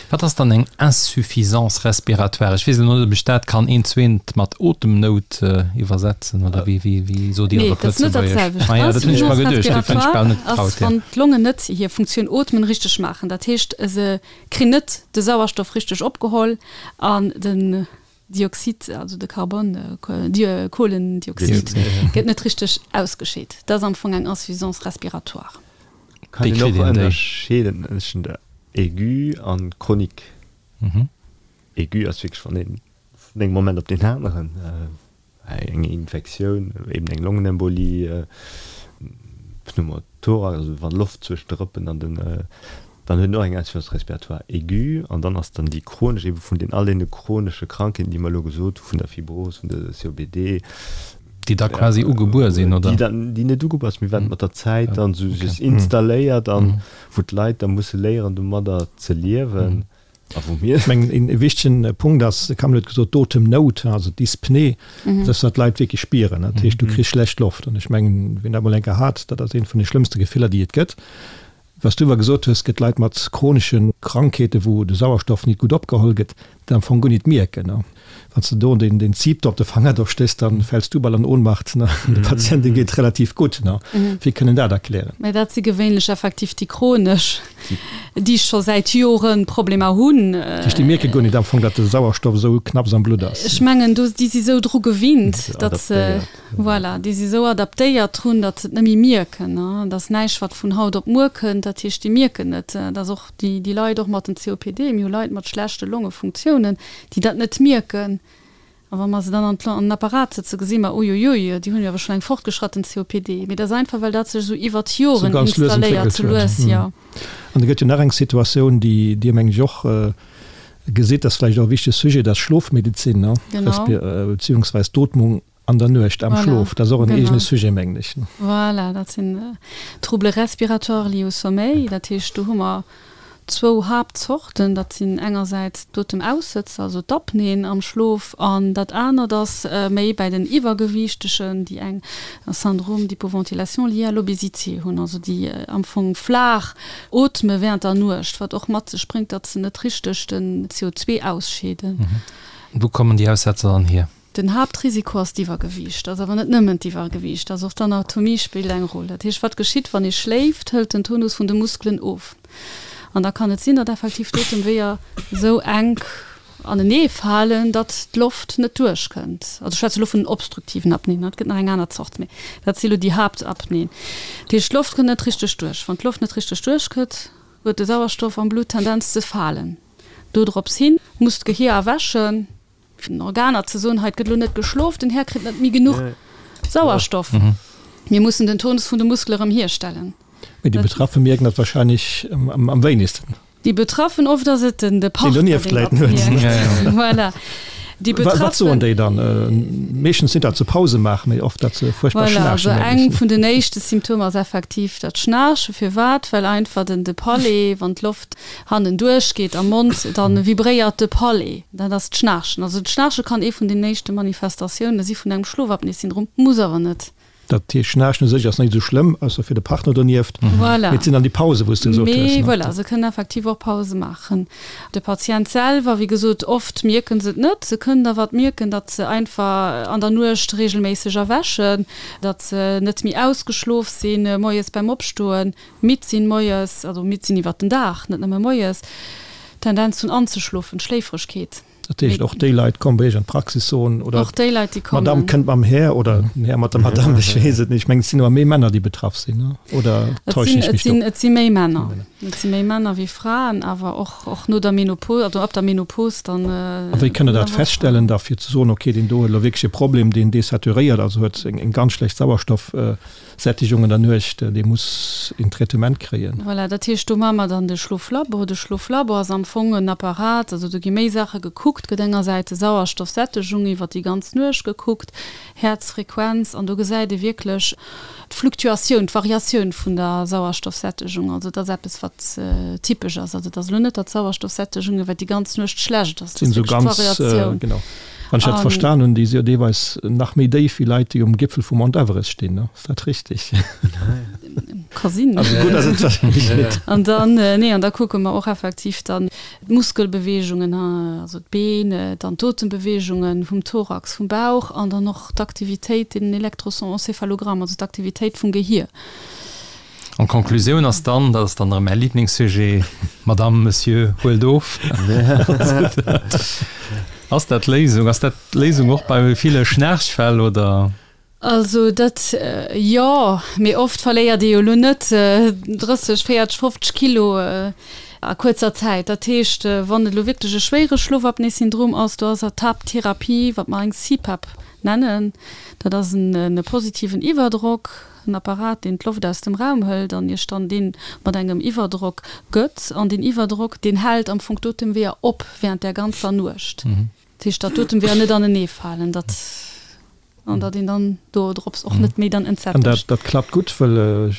Speaker 2: Wat ass dann eng Insuffisance respiratoire? Ech weess elo net, ob ech dat kann eent zu eent mat Otemnout iwwersetzen, oder wéi, wéi, wéi sot Dir
Speaker 5: et op Lëtzebuergesch? Ah ja, dat hunn ech mer geduecht, dofir hunn ech bal net getraut. Ass, wann d'Longen net hir Funktioun Ootmen richteg maachen. Dat heescht, se Kri net de Sauerstoff richteg opgeholl an den Dioxid, also de Carbon, Kohlendioxid, gëtt net richteg ausgescheet. Dat ass am Fong eng Insuffisance respiratoire.
Speaker 4: Kann een och ënnerscheeden tëschent der Aigu an chronique. Aigu ass wierklech wann een vun engem Moment op deen aneren Eng Infektioun, eben eng Longenembolie, Pneumothorax, also wann Loft zwëschen de Rëppen an den, dann huet en och eng Insuffisance respiratoire aiguë an dann ass dann déi chronesch, eben vun den all deene chronesche Krankheeten, déi mer elo gesot hu vun der Fibros, vun der COPD,
Speaker 2: Déi da quasi ugebuer sinn, oder?
Speaker 4: Déi dann, déi net ugebuer sinn, mee wat mat der Zäit dann esou sech installéiert an wou d'Leit da musse léieren domadder ze liewen.
Speaker 3: A wou mir. Ech mengen, een wichtegen Punkt ass, de Camille huet gesot, d'Otemnout, also d'Dyspnée, dass dat d'Leit wierklech spieren. Dat heescht, du kriss schlecht Loft. An ech mengen, wien dat mol eng Kéier hat, dat ass eent vun de schlëmmste Gefiller, déi et gëtt. Wat s du awer gesot hues, et gëtt Leit mat chronesche Krankheeten, wou de Sauerstoff nit gutt opgeholl gëtt, dat am Fong guer nit mierken. Wann s de do den den Zip do op de Fanger do stéchs, dann fäls du bal an Ohnmacht, ne? De Patient, deem geet et relativ gutt, ne? Wéi kënn en dat erklären?
Speaker 5: Mä dat si gewéinlech effektiv déi chronesch, déi scho säit Jore Problemer hunn.
Speaker 3: Dat heescht, déi mierke guer net am Fong, datt de Sauerstoff esou knapps am Blutt ass?
Speaker 5: Ech mengen, do, déi si sou dru gewinnt, datt se, voilà, déi si sou adaptéiert drun, datt se et net méi mierken, ne? Et ass näischt, wat vun haut op muer kënnt. Dat heescht, déi mierken net. Et ass och déi, déi Leit och mat den COPD, mir hu Leit mat schlechte Longefunktiounen, déi dat net mierken. A wa mer se dann an den Apparat sëtzen, gesi mer, Uiuiui, déi hunn jo awer schonn eng fortgeschratten COPD. Mee dat ass einfach, well dat sech esou iwwert d'Joren installéiert,
Speaker 3: sou lues, jo. An da gëtt jo nach eng Situatioun, déi Dir, mengen ech, och gesitt, dat ass vläicht och e wichtege Sujet, dat ass d'Schlofmedezin, beziehungsweis d'Ootmung An der Nuecht, am Schlof, dat ass och en eegene Sujet, mengen ech.
Speaker 5: Voilà, dat sinn Troubles respiratoires liés au sommeil. Dat heescht, do hu mer zwou Haaptzorten. Dat sinn engersäits d'Otemaussëtzer, also d'Apneen am Schlof, an dat anert ass méi bäi den Iwwergewiichtegen, déi eng Syndrome d'hypoventilation lié à l'obésité hunn, also déi am Fong flaach ootme während der Nuecht, wat och mat sech bréngt, datt se net richteg den CO2 ausscheeden.
Speaker 2: Wou kommen déi Aussetzer dann hier?
Speaker 5: Den Haaptrisiko ass d'Iwwergewiicht. Ass awer net nëmmen d'Iwwergewiicht, ass och d'Anatomie spillt eng Roll. Dat heescht, wat geschitt, wann ee schléift, hëlt den Tonus vun de Muskelen of. An da kann et sinn, datt effektiv d'Otemweeër esou enk anenee falen, datt d'Loft net duerchkënnt. Also ech schwätze elo vun den obstruktiven Apnéen, et gëtt nach eng aner Zort, mee dat si elo déi Haaptapnéen. Dat heescht, d'Loft kënnt net richteg duerch. Wann d'Loft net richteg duerchkënnt, huet de Sauerstoff am Blutt d'Tendenz ze falen. Dodrops hin muss d'Gehier erwächen. Fir den Organer ze soen, hei et gëtt elo net geschlof, den Här kritt net méi genuch Sauerstoff, mir mussen den Tonus vun de Muskele erëm hierstellen.
Speaker 3: Mee déi Betraffe mierken dat wahrscheinlech am wéinegsten.
Speaker 5: Déi Betraffen, oft ass et den de Partner, deen dat mierkt. Voilà.
Speaker 3: Déi Betraffen. Wat soen déi dann? Meeschtens sinn dat se Pause maachen, mee oft dat se fuerchtbar
Speaker 5: schnaarchen. Voilà, also eng vun den éischte Symptomer ass effektiv dat Schnaarchen. Firwat? Well einfach den de Palais, wann d'Loft hannen duerch geet am Mond, dann vibréiert de Palais. Dat ass d'Schnaarchen. Also d'Schnaarche kann ee vun den éischte Manifestatioune si vun engem Schlofapnoe-Syndrom, muss awer net.
Speaker 3: Dat heescht, Schnaarchen u sech ass net esou schlëmm, ausser fir de Partner donieft.
Speaker 5: Voilà.
Speaker 3: Mee et sinn dann déi Pause wou s de gesot
Speaker 5: hues. Mee voilà, se kënnen effektiv och Pause maachen. De Patient selwer, wéi gesot, oft mierken se et net. Se kënnen awer et mierken, datt se einfach an der Nuecht reegelméisseg erwächen, datt se net méi ausgeschlof sinn moies beim Opstoen. Midd sinn moies, also midd sinn iwwert den Dag, net nëmme moies, Tendenz hunn anzeschlofen, Schléifregkeet.
Speaker 3: Dat heescht, och déi Leit kommen bei Iech an d'Praxis, soen, oder
Speaker 5: Och déi Leit, déi kommen.
Speaker 3: d'Madame kënnt mam Här oder den Här mat der Madame, ech weess et net. Ech mengen, et sinn awer méi Männer, déi betraff sinn, ne? Oder täuschen ech mech do?
Speaker 5: Et si méi Männer. Et si méi Männer wéi Fraen, awer och, och no der Menopos, also ab der Menopos dann.
Speaker 3: A wéi kënnt Der dat feststellen da, fir ze soen, okay, deen do huet elo wierklech e Problem, deen desaturéiert, also huet eng ganz schlecht Sauerstoff, Sättigung an der Nuecht, dee muss een Traitement kréien.
Speaker 5: Voilà, dat heescht, do maache mer dann de Schloflabo. De Schloflabo ass am Fong en Apparat, also do gi méi Saache gekuckt. gekuckt gëtt. Engersäits de Sauerstoffsättegung iwwer déi ganz Nuecht gekuckt, Häerzfrequenz, an do gesäit ee wierklech d'Fluktuatioun, d'Variatioun vun der Sauerstoffsättegung. Also dat ass eppes, wat typesch ass. Also et ass elo net, datt d'Sauerstoffsättegung iwwer déi ganz Nuecht schlecht ass,
Speaker 3: et ass wierklech d'Variatioun. Genau. Wann ech dat verstan hunn, déi si jo deelweis nach méi déif wéi Leit, déi um Gipfel vum Mount Everest stinn, ne? Ass dat richtig?
Speaker 5: Ka sinn.
Speaker 3: Also gutt ass et wahrscheinlech net.
Speaker 5: An dann, nee, an da kucke mer och effektiv dann d'Muskelbeweegungen, also d'Been, dann d'Otembeweegungen vum Thorax, vum Bauch an dann och d'Aktivitéit, den Elektroencéphalogramm, also d'Aktivitéit vum Gehier.
Speaker 2: An d'Konklusioun ass dann, dat ass dann erëm mäi Liblingssujet, Madame, Monsieur, huelt of. Ass dat d'Léisung? Ass dat d'Léisung och bei ville Schnaarchfäll, oder?
Speaker 5: Also dat, jo, mee oft verléiert ee jo elo net 30, 40, 50 Kilo a kuerzer Zäit. Dat heescht, wann et elo wierklech e schwéiere Schlofapnoe-Syndrom ass, do ass d'Haapttherapie, wat mer eng CPAP nennen, dat ass en positiven Iwwerdrock, en Apparat, deen d'Loft aus dem Raum hëlt an Iech dann dee mat engem Iwwerdrock gëtt. An deen Iwwerdrock, deen hält am Fong d'Otemweeër op während där ganzer Nuecht. Dat heescht, datt d'Otemweeër net aneneefalen, datt an datt een dann do drops och net méi dann
Speaker 3: entsättegt. An dat, dat klappt gutt, well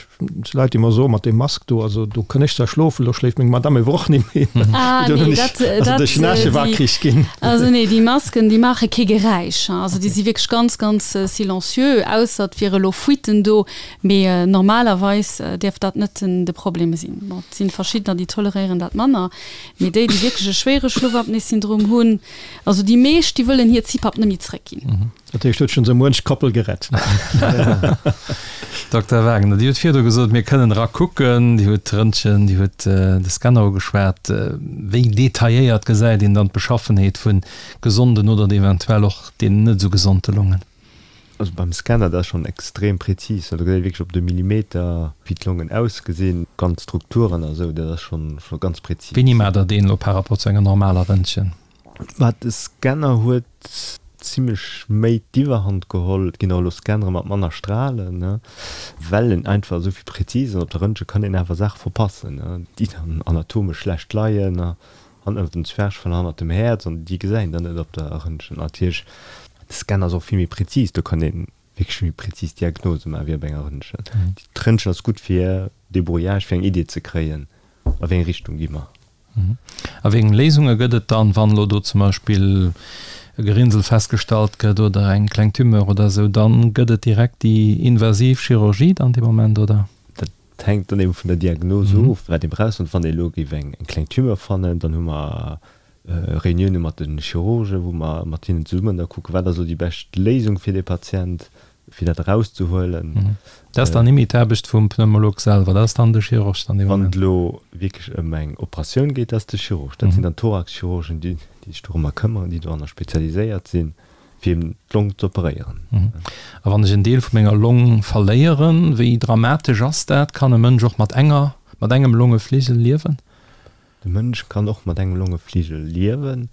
Speaker 3: Leit, déi mer soen, mat deem Mask do, also do kënn ech zwar schlofen, elo schléift meng Madame ewer och net méi.
Speaker 5: Ah nee, dat,
Speaker 3: dat, also duerch den Wakrich ginn.
Speaker 5: Also nee, déi Masken, déi maache kee Geräisch, also déi si wierklech ganz, ganz silencieux, ausser et wiere elo Fuiten do, mee normalerweis däerf dat net den, de Problem sinn. Bon, et sinn verschiddener, déi toleréieren dat manner, mee déi, déi wierklech e schwéiere Schlofapnoe-Syndrom hunn, Also déi meescht, déi wëllen hir CPAP net méi zréckginn.
Speaker 3: Dat heescht, huet schonn esou muench Koppel gerett.
Speaker 2: Dokter Wagner, Dir hutt virdu gesot, mir kënnen era kucken. Dir hutt d'Röntgen, Dir hutt de Scanner ugeschwat. Wéi detailléiert gesäit een dann d'Beschaffenheet vu gesonden oder eventuell och deenen net esou gesonde Longen?
Speaker 4: Also beim Scanner, dat ass schonn extrem prezis. Do gesäit ee wierklech op de Millimeter, wéi d'Longen ausgesinn, ganz Strukturen a sou. Dat ass schonn ganz prezis.
Speaker 2: Wéini maacht Der deen elo par rapport zu enger normaler Röntgen?
Speaker 4: Mä de Scanner huet zimlech méi d'Iwwerhand geholl. Et ginn och elo Scannere mat manner Stralen, ne, well en einfach esou vill präzis ass. Op der Röntgen kann een awer Saache verpassen, ne, déi dann anatomesch schlecht leien, ne, hannert dem Zwerchfell, hannert dem Häerz, an déi gesäit een dann net op der Röntgen. Natierlech, de Scanner ass och vill méi präzis, do kann ee wierklech méi präzis Diagnose maachen wéi op enger Röntgen. D'Röntgen ass gutt fir Débrouillage, fir eng Idee ze kréien, a wéi eng Richtung gi mer.
Speaker 2: A wéi eng Léisunge gëtt et dann, wann elo do zum Beispill e Gerinnsel festgestallt gëtt oder eng kleng Tumeur oder esou? Dann gëtt et direkt déi invasiv Chirurgie dann dee Moment, oder?
Speaker 4: Dat hänkt dann eben vun der Diagnos of, wat ee brauch. Wann ee elo géif eng kleng Tumeur fannen, dann hu mer Reunioune mat de Chirurgen, wou mer mat hinnen zesummen da kucken, wat ass elo déi bescht Léisung fir dee Patient. fir dat erauszehuelen.
Speaker 2: Dat ass dann nimmi d'Aarbecht vum Pneumolog selwer, dat ass dann de Chirurg
Speaker 4: dann dee Moment. Wann et elo wierklech ëm eng Operatioun geet, dat ass de Chirurg. Dat sinn dann d'Thoraxchirurgen, déi sech dorëmmer këmmeren, déi doranner spezialiséiert sinn, fir eben d'Long z'operéieren.
Speaker 2: A wann ech en Deel vu menger Long verléieren, wéi dramatesch ass dat? Kann e Mënsch och mat enger, mat engem Longefligel liewen?
Speaker 4: De Mënsch kann och mat engem Longefligel liewen.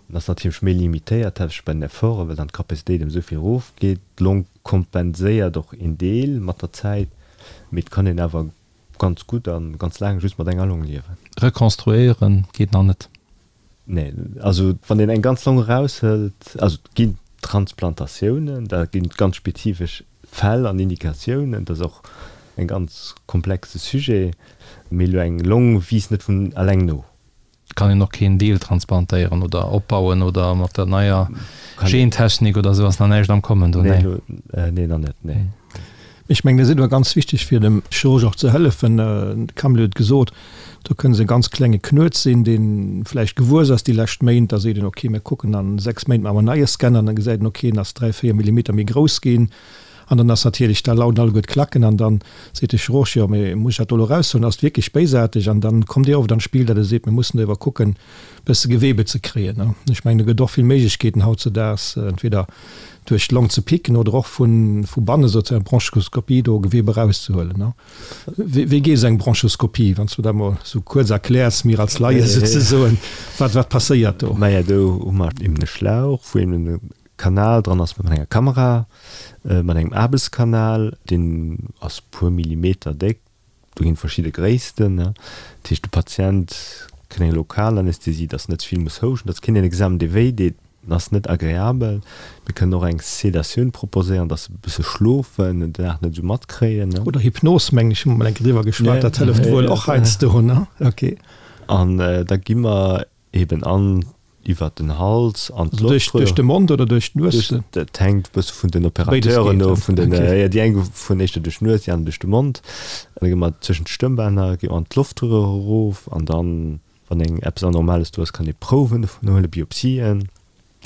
Speaker 4: En ass natierlech méi limitéiert, haaptsächlech bei den Efforten, well dann d'Capacitéit ëm esou vill erofgeet. D'Long kompenséiert och een Deel mat der Zäit, mee et kann een awer ganz gutt a ganz laang just mat enger Long liewen.
Speaker 2: Rekonstruéieren geet nach net?
Speaker 4: Nee, also wann een eng ganz Long eraushëlt, also et ginn Transplantatiounen, da ginn et ganz spezifesch Fäll an Indikatiounen, dat ass och en ganz komplexe Sujet, mee elo eng Long wiisst net vun alleng no.
Speaker 2: Et kann een och keen Deel transplantéieren oder opbauen oder mat der neier Gentechnik oder esou ass nach näischt am Kommen do,
Speaker 4: nee? Nee, nach net, nee.
Speaker 3: Ech mengen, dat ass awer ganz wichteg fir dem Chirurg och ze hëllefen. De Camille huet et gesot, do kënne se e ganz klenge Knuet sinn, dee vläicht gewuess ass déi lescht Méint. Da seet een, okay, mir kucken a 6 Méint maache mer en neie Scanner. An da gesäit een, okay, en ass 3, 4 Millimeter méi grouss ginn. An dann ass natierlech, da lauden alleguer d'Klacken an dann seet de Chirurg, jo, mee muss ech dat do elo eraushuelen, ass et wierklech béisaarteg? An dann kommt Dir oft an d'Spill, datt e seet, mir mussen do ewer kucken, e bësse Gewebe ze kréien. Ech mengen, do gëtt och vill Méiglechkeeten hautzedaags, entweder duerch d'Long ze picken oder och vu vu banne souzesoen Bronchoskopie do Gewebe erauszehuelen. Wéi geet esou eng Bronchoskopie, wann s du dat mol esou kuerz erkläers, mir als Laie souzesoen, wat wat passéiert do?
Speaker 4: Maja, do hu mer eben e Schlauch, wou eben e Kanal dran ass mat enger Kamera, mat engem Aarbechtskanal, deen ass e puer Millimeter déck, Do ginn et verschidde Gréissten. Dat heescht, de Patient. Kënne eng Lokalanästhesie, dass net ze vill muss houschten, dass keen en Examen dee wéi deet, en ass net agreabel. Mir kënnen och eng Sedatioun proposéieren, dass se e bësse schlofen, den Dag net esou matkréien.
Speaker 3: Oder Hypnos, mengen ech, hu mer mol eng Kéier driwwer geschwat, dat hëlleft wuel och heiansdo, ne? Ok.
Speaker 4: An da gi mer eben an iwwert den Hals an
Speaker 3: d'Loftröhr. Duerch de Mond oder duerch d'Nues?
Speaker 4: Dat hänkt e bësse vun den Operateuren of, vun den, jo, déi eng fueren éischter duerch d'Nues, déi aner duerch de Mond. An da gi mer zwëschen d'Stëmmbänner, gi mer an d'Loftröhr erof an dann, wann eng eppes Anormales do ass, kann ee Prouwen dovun huelen, Biopsien.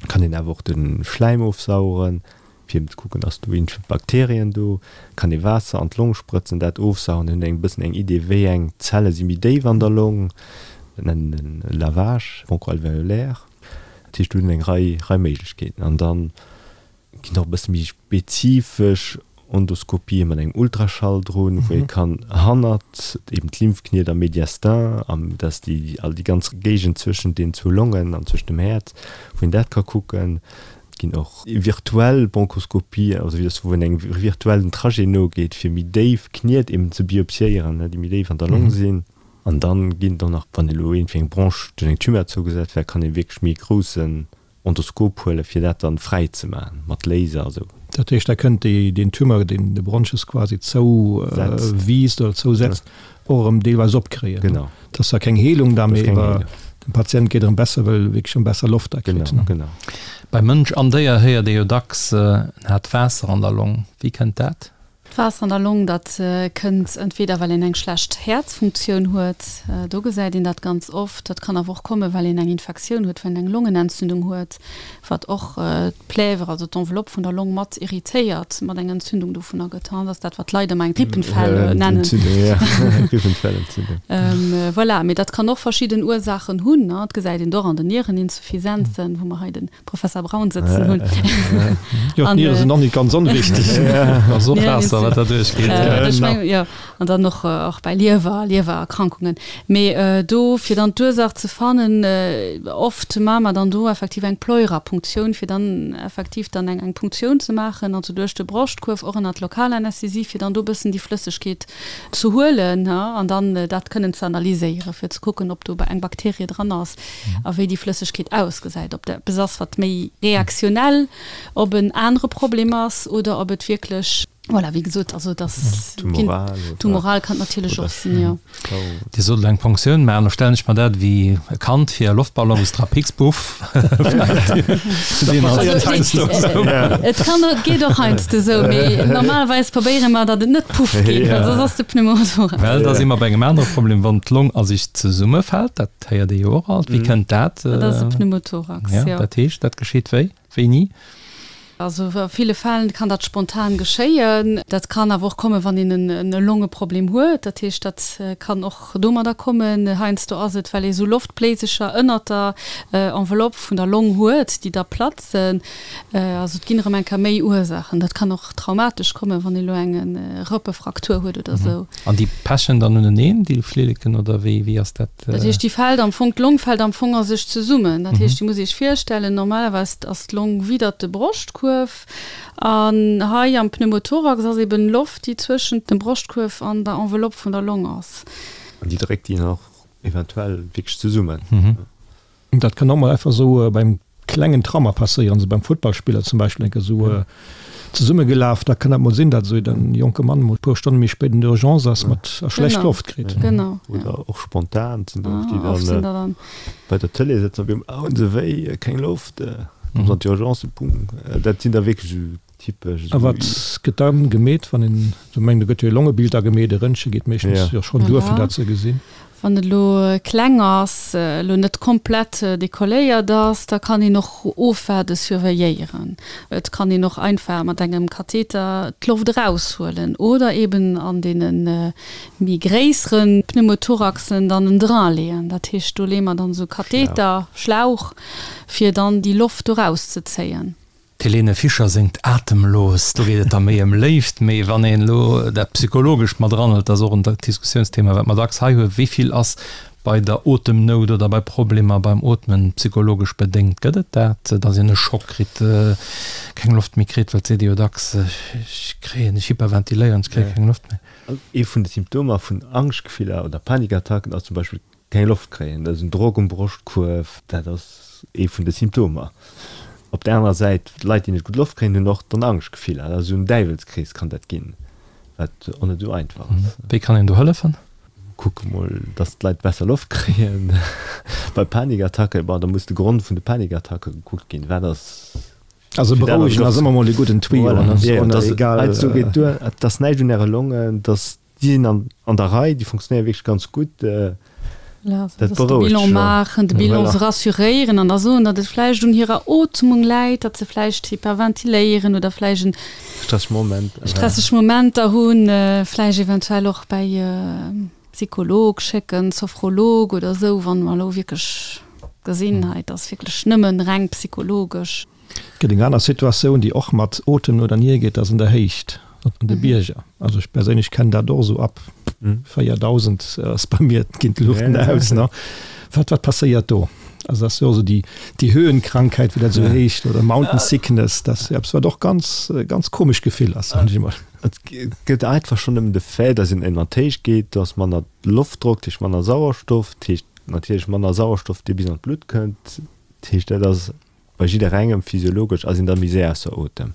Speaker 4: Kann een awer och de Schläim ofsaugen, fir eben ze kucken, ass do iergendwéi Bakterien do. Kann ee Waasser an d'Long sprëtzen, dat ofsaugen, dann huet een e bëssen eng Idee, wéi eng Zelle si méi déif an der Long. Dat nennen en Lavage bronchoalvéolaire. Dat heescht, do hunn eng Rei, Rei Méiglechkeeten. An dann ginn och e bësse méi spezifesch Endoskopië mat engem Ultraschall drun, wou ee kann hannert eben d'Lymphkniet am Mediastin, am, dat ass déi, all déi ganz Géigend zwëschent den zwou Longen an zwëschent dem Häerz, wou een dat ka kucken. Et ginn och virtuell Bronchoskopien, also wéi dass wou een engem virtuellen Trajet nogeet, fir méi déif Kniet eben ze biopsiéieren, déi méi déif an der Long sinn. An dann ginn et och nach, wann elo iergendwéi eng Bronche duerch eng Tumeur zougesat wär, kann ee wierklech méi groussen Endoskop huelen, fir dat dann fräi ze maachen, mat Laser a sou.
Speaker 3: Dat heescht, da kënnt déi, deen Tumeur, deen de Bronchus quasi zou wiisst oder zousetzt, och erëm deelweis opkréien.
Speaker 4: Genau.
Speaker 3: Dat ass zwar keng Heelung da, mee awer dem Patient geet erëm besser, well e wierklech erëm besser Loft da kritt.
Speaker 4: Genau, genau.
Speaker 2: Bei Mënsch an Déier héiert ee jo dacks, en hat Waasser an der Long. Wéi kënnt dat?
Speaker 5: D'Waasser an der Long, dat kënnt entweder well een eng schlecht Häerzfunktioun huet, do gesäit een dat ganz oft. Dat kann awer och kommen, well een eng Infektioun huet, well een eng Longenentzündung huet, wat och d'Plèvre, also d'Enveloppe vun der Long mat irritéiert, mat eng Entzündung dovunner gëtt. Dat ass dat, wat d'Leit ëmmer eng Grippenfell nennen. Voilà, mee dat kann och verschidden Ursaachen hunn. Dat gesäit een och an den Niereninsuffisenzen, wou mer hei de Professor Braun sëtzen hunn.
Speaker 3: Jo, d'Niere sinn och net ganz onwichtig.
Speaker 2: Ass och Waasser, wat da duerchgeet.
Speaker 5: Ech mengen, jo. An dann och, och bei Liewer, Liewererkrankungen. Mee do, fir dann d'Ursaach ze fannen, oft maache mer dann do effektiv eng Pleurapunktioun, fir dann effektiv dann eng, eng Punktioun ze maachen, also duerch de Broschtkuerf, och ënnert Lokalanästhesie, fir dann do e bëssen déi Flëssegkeet ze huelen an dann dat kënnen ze analyséieren, fir ze kucken, ob do eng Bakterie dran ass a wéi déi Flëssegkeet ausgesäit, ob dat eppes ass, wat méi reaktionell op en anere Problem ass oder ob et wierklech, voilà, wéi gesot, also dass tumoral kann et natierlech och sinn, jo.
Speaker 2: Dir sot elo eng Ponktioun maachen, da stellen ech mer dat ewéi e Kand fir e Loftballon, wou s dra pickst, puff.
Speaker 5: Et kann, et geet och heiansdo esou, mee normalerweis probéiere mer, datt et net puff geet, well soss ass de Pneumothorax.
Speaker 2: Well da si mer bei engem anere Problem, wann d'Long a sech zesummefält, dat héiert ee jo och alt. Wéi kënnt dat?
Speaker 5: Dat ass e Pneumothorax, jo.
Speaker 2: Dat heescht, dat geschitt wéi? Wéini?
Speaker 5: Also a ville Fäll kann dat spontan geschéien. Dat kann awer och kommen, wann een en Longeproblem huet. Dat heescht, dat kann och domadder kommen. Heiansdo ass et, well ee sou Loftbléisecher ënnert der Enveloppe vun der Long huet, déi da platzen. Also et ginn erëm eng Kéier méi Ursaachen. Dat kann och traumatesch kommen, wann ee lo eng Rëppefraktur huet oder sou.
Speaker 2: An déi pechen dann uneneen, déi Flilleken, oder wéi, wéi ass dat?
Speaker 5: Dat heescht, déi fält am Fong, d'Long fält am Fong a sech zesummen. Dat heescht, Dir musst Iech virstellen, normalerweis ass d'Long widdert de Broschtkuerf an hei am Pneumothorax ass eben Loft, déi zwëschent dem Broschtkuerf an der Enveloppe vun der Long ass.
Speaker 4: An déi dréckt déi nach eventuell wierklech zesummen.
Speaker 3: Dat kann och mol einfach esou beim klengen Trauma passéieren, esou beim Futtballspiller zum Beispill, enke esou zesummegelaf, da kann dat mol sinn, datt esou en jonke Mann mol e puer Stonne méi spéit an der Urgence ass mat a schlecht Loft kritt.
Speaker 5: Genau.
Speaker 4: Oder och spontan sinn der och, déi dann bei der Tëlee sëtzen, op eemol, Au, se wéi, keng Loft, kommen se an d'Urgence, boum. Dat sinn da wierklech esou
Speaker 3: Typesch. A wat gëtt da gemeet, wann een esou mengt, do gëtt jo e Longebild da gemeet, e Röntgen geet meeschtens jo schonn duer, fir dat ze gesinn.
Speaker 5: Wann et elo kleng ass, elo net komplett dekolléiert ass, da kann een och ofwaarde, surveilléieren. Et kann een och einfach mat engem Katheter d'Loft eraushuelen oder eben an deene méi gréissere Pneumothoraxen dann en Drain leeën. Dat heescht, do leeë mer dann esou Katheter, Schlauch, fir dann déi Loft do erauszezéien.
Speaker 2: D'Helene Fischer séngt Atemlos, do geet et da méi ëm Léift. Mee wann een elo dat Psychologescht mat eranhëlt, dat ass och en Diskussiounsthema, wat mer dacks hei hunn, wéi vill ass bei der Otemnout oder bei Problemer beim Ootmen psychologesch bedéngt? Gëtt et dat, datt een e Schock kritt, keng Loft méi kritt? Well et seet ee jo dacks, ech kréien, ech hyperventiléieren, ech kréie keng Loft méi.
Speaker 4: Ee vun de Symptomer vun Angschtgefiller oder Panikattacken ass zum Beispill. keng Loft kréien, dat ass en Drock um Broschtkuerf, dat ass ee vun de Symptomer. Op der anerer Säit, Leit, déi net gutt Loft kréien, hunn och dann Angschtgefiller. Dat ass esou en Däiwelskrees kann dat ginn, wat och net esou einfach ass.
Speaker 2: Wéi kann een do hëllefen?
Speaker 4: Kucke mol, dass d'Leit besser Loft kréien. Bei Panikattacke, bon, da muss de Grond vun de Panikattacke gekuckt ginn. Wat ass
Speaker 3: Also berouegen ass ëmmer mol e gudden Tuyau.
Speaker 4: Voilà, jo, dass heiansdo geet duer, et ass näischt un äre Longen, dass déi sinn an an der Rei, déi funktionéiere wierklech ganz gutt.
Speaker 5: Voilà, also dass de Bilan maachen, de Bilan se rassuréieren an da soen, datt et vläicht un hirer Ootmung läit, datt se vläicht hyperventiléieren oder vläicht en
Speaker 4: Stresseg Moment.
Speaker 5: Stresseg Momenter hunn, vläicht eventuell och bäi e Psycholog schécken, Sophrolog oder esou, wann mer elo wierklech gesinn, hei et ass wierklech nëmmen reng psychologesch.
Speaker 3: Et gëtt eng aner Situatioun, déi och mat Otemen oder Nier geet, dat ass an der Héicht, an de Bierger. Also ech perséinlech kennen dat och esou, ab 4.000 ass bei mir, ginn d'Luuchten aus. Wat, wat passéiert do? Also dat ass jo esou déi, déi Höhenkrankheit, wéi dat esou heescht, oder Mountain Sickness, dat ass jo eppes, wat och ganz, ganz komesch Gefill ass, soen ech emol.
Speaker 4: Et gëtt einfach schonn nëmmen de Fait, dass een ënner d'Héicht geet, do ass manner Loftdrock, dat heescht manner Sauerstoff, dat heescht natierlech manner Sauerstoff, dee bis an d'Blutt kënnt. Dat heescht, dat ass bei jidderengem physiologesch ass een da méi séier ausser Otem.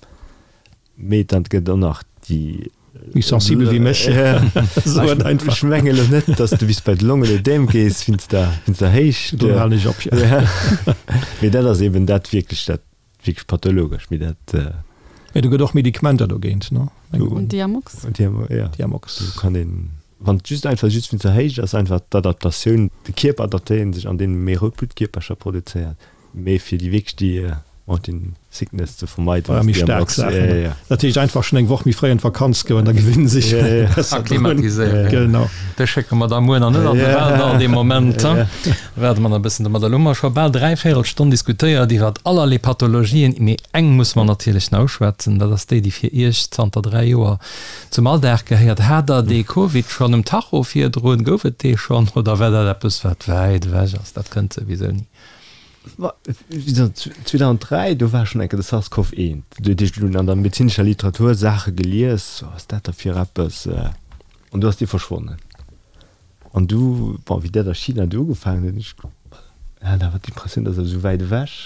Speaker 4: Mee dann gëtt och nach déi.
Speaker 3: Méi sensibel wéi mech.
Speaker 4: Ech menge lo net, datt s de bis bei de Longenödem gees wéinst der, wéinst der Héicht.
Speaker 3: Do halen ech op, jo.
Speaker 4: Mee dat ass eben dat wierklech, dat wierklech pathologesch. Mee dat.
Speaker 3: Mee do gëtt och Medikamenter dogéint,
Speaker 5: ne? Diamox.
Speaker 3: Diamox.
Speaker 4: Do kann een, wann et just einfach just wéinst der Héicht ass, einfach d'Adaptatioun, de Kierper adaptéiert sech an deem e méi rout Bluttkierpercher produzéiert. Mee fir déi wierklech déi Mountain Sickness ze vermeiden,
Speaker 3: ass déi am Box. Dat heescht einfach schonn eng Woch méi fréi an d'Vakanz goen, da gewinne sech
Speaker 2: besser drun. Genau. Dech schécke mer da muer nach net an de Waldall dee Moment. Waarde mer nach e bëssen domadder. Elo hu mer scho bal dräivéierel Stonn diskutéiert iwwert allerlee Pathologien, mee eng musse mer natierlech nach uschwätzen, dat ass déi, déi fir Iech zanter 3 Joer zum Alldag gehéiert. Hat Der dee Covid schonn um Tacho virdrun? Gouf et dee schonn oder war dat eppes, wat wäit ewech ass? Dat kënnt souwisou ni.
Speaker 4: 2003, do war schonn eng Kéier de SARS-CoV 1. Do huet ech dunn an der medezinescher Literatur Saache gelies, wat ass dat da fir eppes? An du ass dee verschwonnen. An du, bon, wéi dat a China du ugefaangen huet, ech hat awer d'Impressioun, dat ass esou wäit ewech,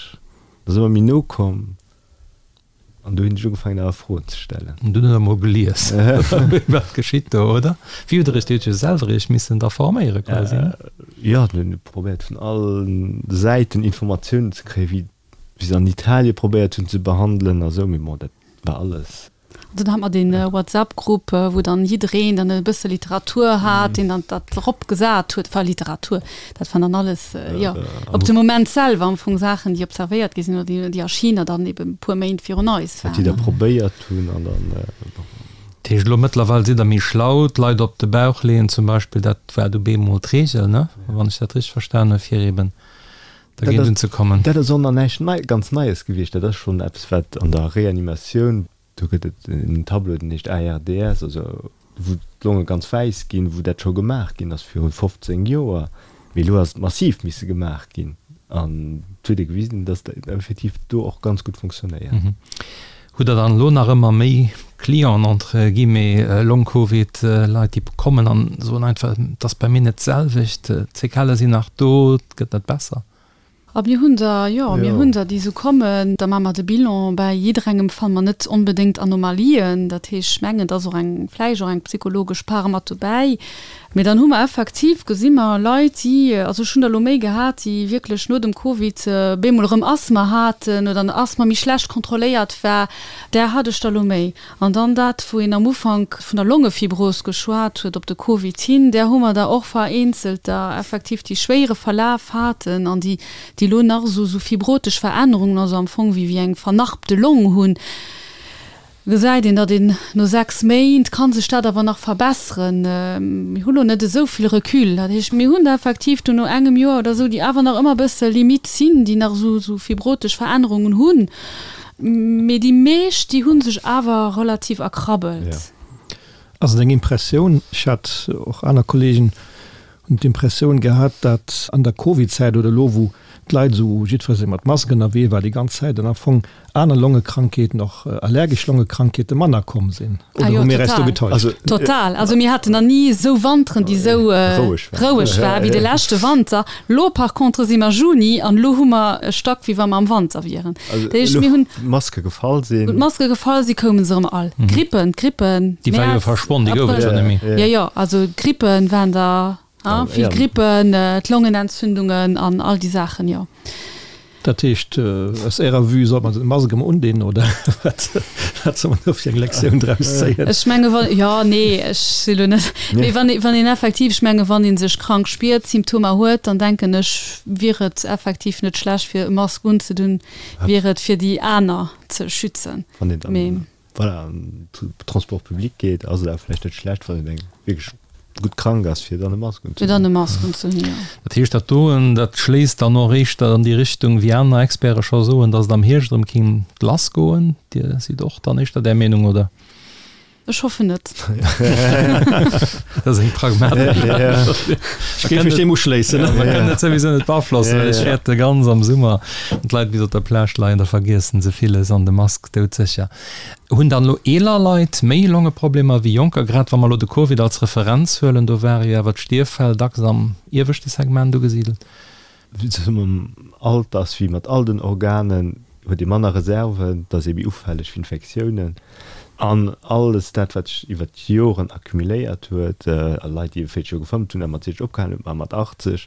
Speaker 4: dat ass ëmmer méi no komm. An du hunn ech ugefaangen awer Froen ze stellen.
Speaker 2: An dunn hutt der mol gelies, wat geschitt do, oder? Wéi hutt der iech, Dir hutt jo selwer iech missen da forméiere quasi, ne?
Speaker 4: Jo, mir hunn probéiert vun all Säiten Informatiounen ze kréien, wéi wéi se an Italie probéiert hunn ze behandelen a sou, mee bon, dat war alles.
Speaker 5: An dunn hat mer dee WhatsApp-Grupp, wou dann jiddereen dann e bësse Literatur hat, deen dann dat eropgesat huet, enfin Literatur, Dat waren dann alles, jo, op de Moment selwer am Fong Saachen, déi observéiert gi sinn oder déi a China dann eben e puer Méint virun eis
Speaker 4: waren. Wat déi da probéiert hunn an dann, bon.
Speaker 2: Dat heescht, elo mëttlerweil sidd Der méi schlau, d'Leit op de Bauch leeën zum Beispill, dat war du bemol d'Reegel, ne, wann ech dat richteg verstan hunn, fir eben dergéint unzekommen.
Speaker 4: Dat ass och nach näischt nei, ganz Neies gewiescht. Dat ass schonn eppes, wat an der Reanimatioun Do gëtt et en Tableau, deen heescht ARDS, also wou d'Longe ganz wäiss ginn, wou dat scho gemaach ginn ass viru 15 Joer. Mee elo ass et massiv misse gemaach ginn an et huet ee gewisen, datt dat effektiv do och ganz gutt funktionéiert.
Speaker 2: Hutt Der dann elo nach ëmmer méi Clienten, entre guillemets, Long-Covid-Leit, déi kommen an soen einfach, et ass bei mir net d'selwecht, d'Séquellë sinn nach do, et gëtt net besser?
Speaker 5: A mir hunn der, jo, mir hunn der, déi esou kommen. Da maache mer de Bilan. Bäi jidderengem fanne mer net onbedéngt Anomalien. Dat heescht, ech mengen, et ass och eng, vläicht och eng psychologesch Part mat dobäi. Mee dann hu mer effektiv, gesi mer Leit, déi, also ech hunn der elo méi gehat, déi wierklech no dem Covid bemol erëm Asthma haten oder den Asthma méi schlecht kontrolléiert war. Där hat ech der elo méi. An dann dat, wou een am Ufank vun der Longefibros geschwat huet, op de Covid hin, där hu mer der och vereenzelter effektiv, déi schwéiere Verlaf haten an déi, déi elo nach esou, esou fibrotesch Verännerungen, also am Fong wéi, wéi eng vernarbte Long hunn. Gesäit een, datt een no 6 Méint ka sech dat awer nach verbesseren. Mir hu lo net esou vill Recul. Dat heescht, mir hunn der effektiv do no engem Joer oder esou, déi awer nach ëmmer e bësse limite sinn, déi nach esou, esou fibrotesch Verännerungen hunn. Mee déi meescht, déi hu sech awer relativ erkrabbelt.
Speaker 3: Ass et eng Impressioun, ech hat och aner Kollegen. Hunn d'Impressioun gehat, datt an der Covid-Zäit oder elo wou d'Leit esou jiddweree mat Mask ënnerwee war déi ganz Zäit an am Fong aner Longekrankheeten, och allergesch Longekrankheete manner komm sinn.
Speaker 5: Oder hu mir eis do getäuscht? Total. Also mir haten nach ni esou Wanteren, déi esou roueg war wéi de leschte Wanter. Lo par contre si mer Juni an elo hu mer e Stack wéi wa mer am Wanter wieren.
Speaker 4: Dat heescht mir hunn. Wou d'Maske gefall sinn.
Speaker 5: Wou d'Maske gefall sinn, koume se erëm all. D'Grippen, d'Grippen.
Speaker 2: Déi war jo verschwonn, déi gouf et jo net méi.
Speaker 5: Jo, jo, also d'Grippen waren der. Ah, vill Grippen, d'Longenentzündungen an all déi Saachen, jo.
Speaker 3: Dat heescht, aus Ärer Vue sollt man d'Mask emol undinn, oder wat soll man do fir eng Lektioun draus zéien?
Speaker 5: Ech menge wann, jo, nee, ech si lo net, mee wann ee, wann een effektiv, ech menge wann ee sech krank spiert, Symptomer huet, dann denken ech, wier et effektiv net schlecht fir e Mask unzedunn, wier et fir déi aner ze schützen.
Speaker 4: Wann een dann voilà, an den Transport public geet, ass et awer vläicht net schlecht, wann een eng wierklech gutt krank ass, fir dann e Mask
Speaker 5: unzehunn. Fir dann e Mask unzehunn, jo.
Speaker 2: Dat heescht, dat doen, dat schléisst dann och éischter an déi Richtung, wéi aner Experte scho soen, datt et am Hierscht erëm kéint lassgoen. Dir sidd och dann éischter där Meenung, oder?
Speaker 5: Ech hoffen net.
Speaker 2: Dat ass eng pragmatesch Äntwert.
Speaker 3: Ech géif mech deem uschléissen.
Speaker 2: Mer kënnen et souwisou net beaflossen, well ech fäerte ganz am Summer, wann d'Leit bis op der Plage leien, da vergiessen se villes an de Mask doudsécher. Hunn dann elo eeler Leit méi Longeproblemer wéi jonker? Grad wa mer elo de Covid als Referenz huelen, do ware jo awer d'Stierffäll dacks am ieweschte Segment ugesidelt.
Speaker 4: Mam Alter ass wéi mat all den Organen, huet ee manner Reserven, et ass ee méi ufälleg fir Infektiounen an alles dat wat sech iwwer d'Joren accumuléiert huet. A Leit déi 40 Joer gefëmmt hunn a mat 60 opgehalen hunn, ma mat 80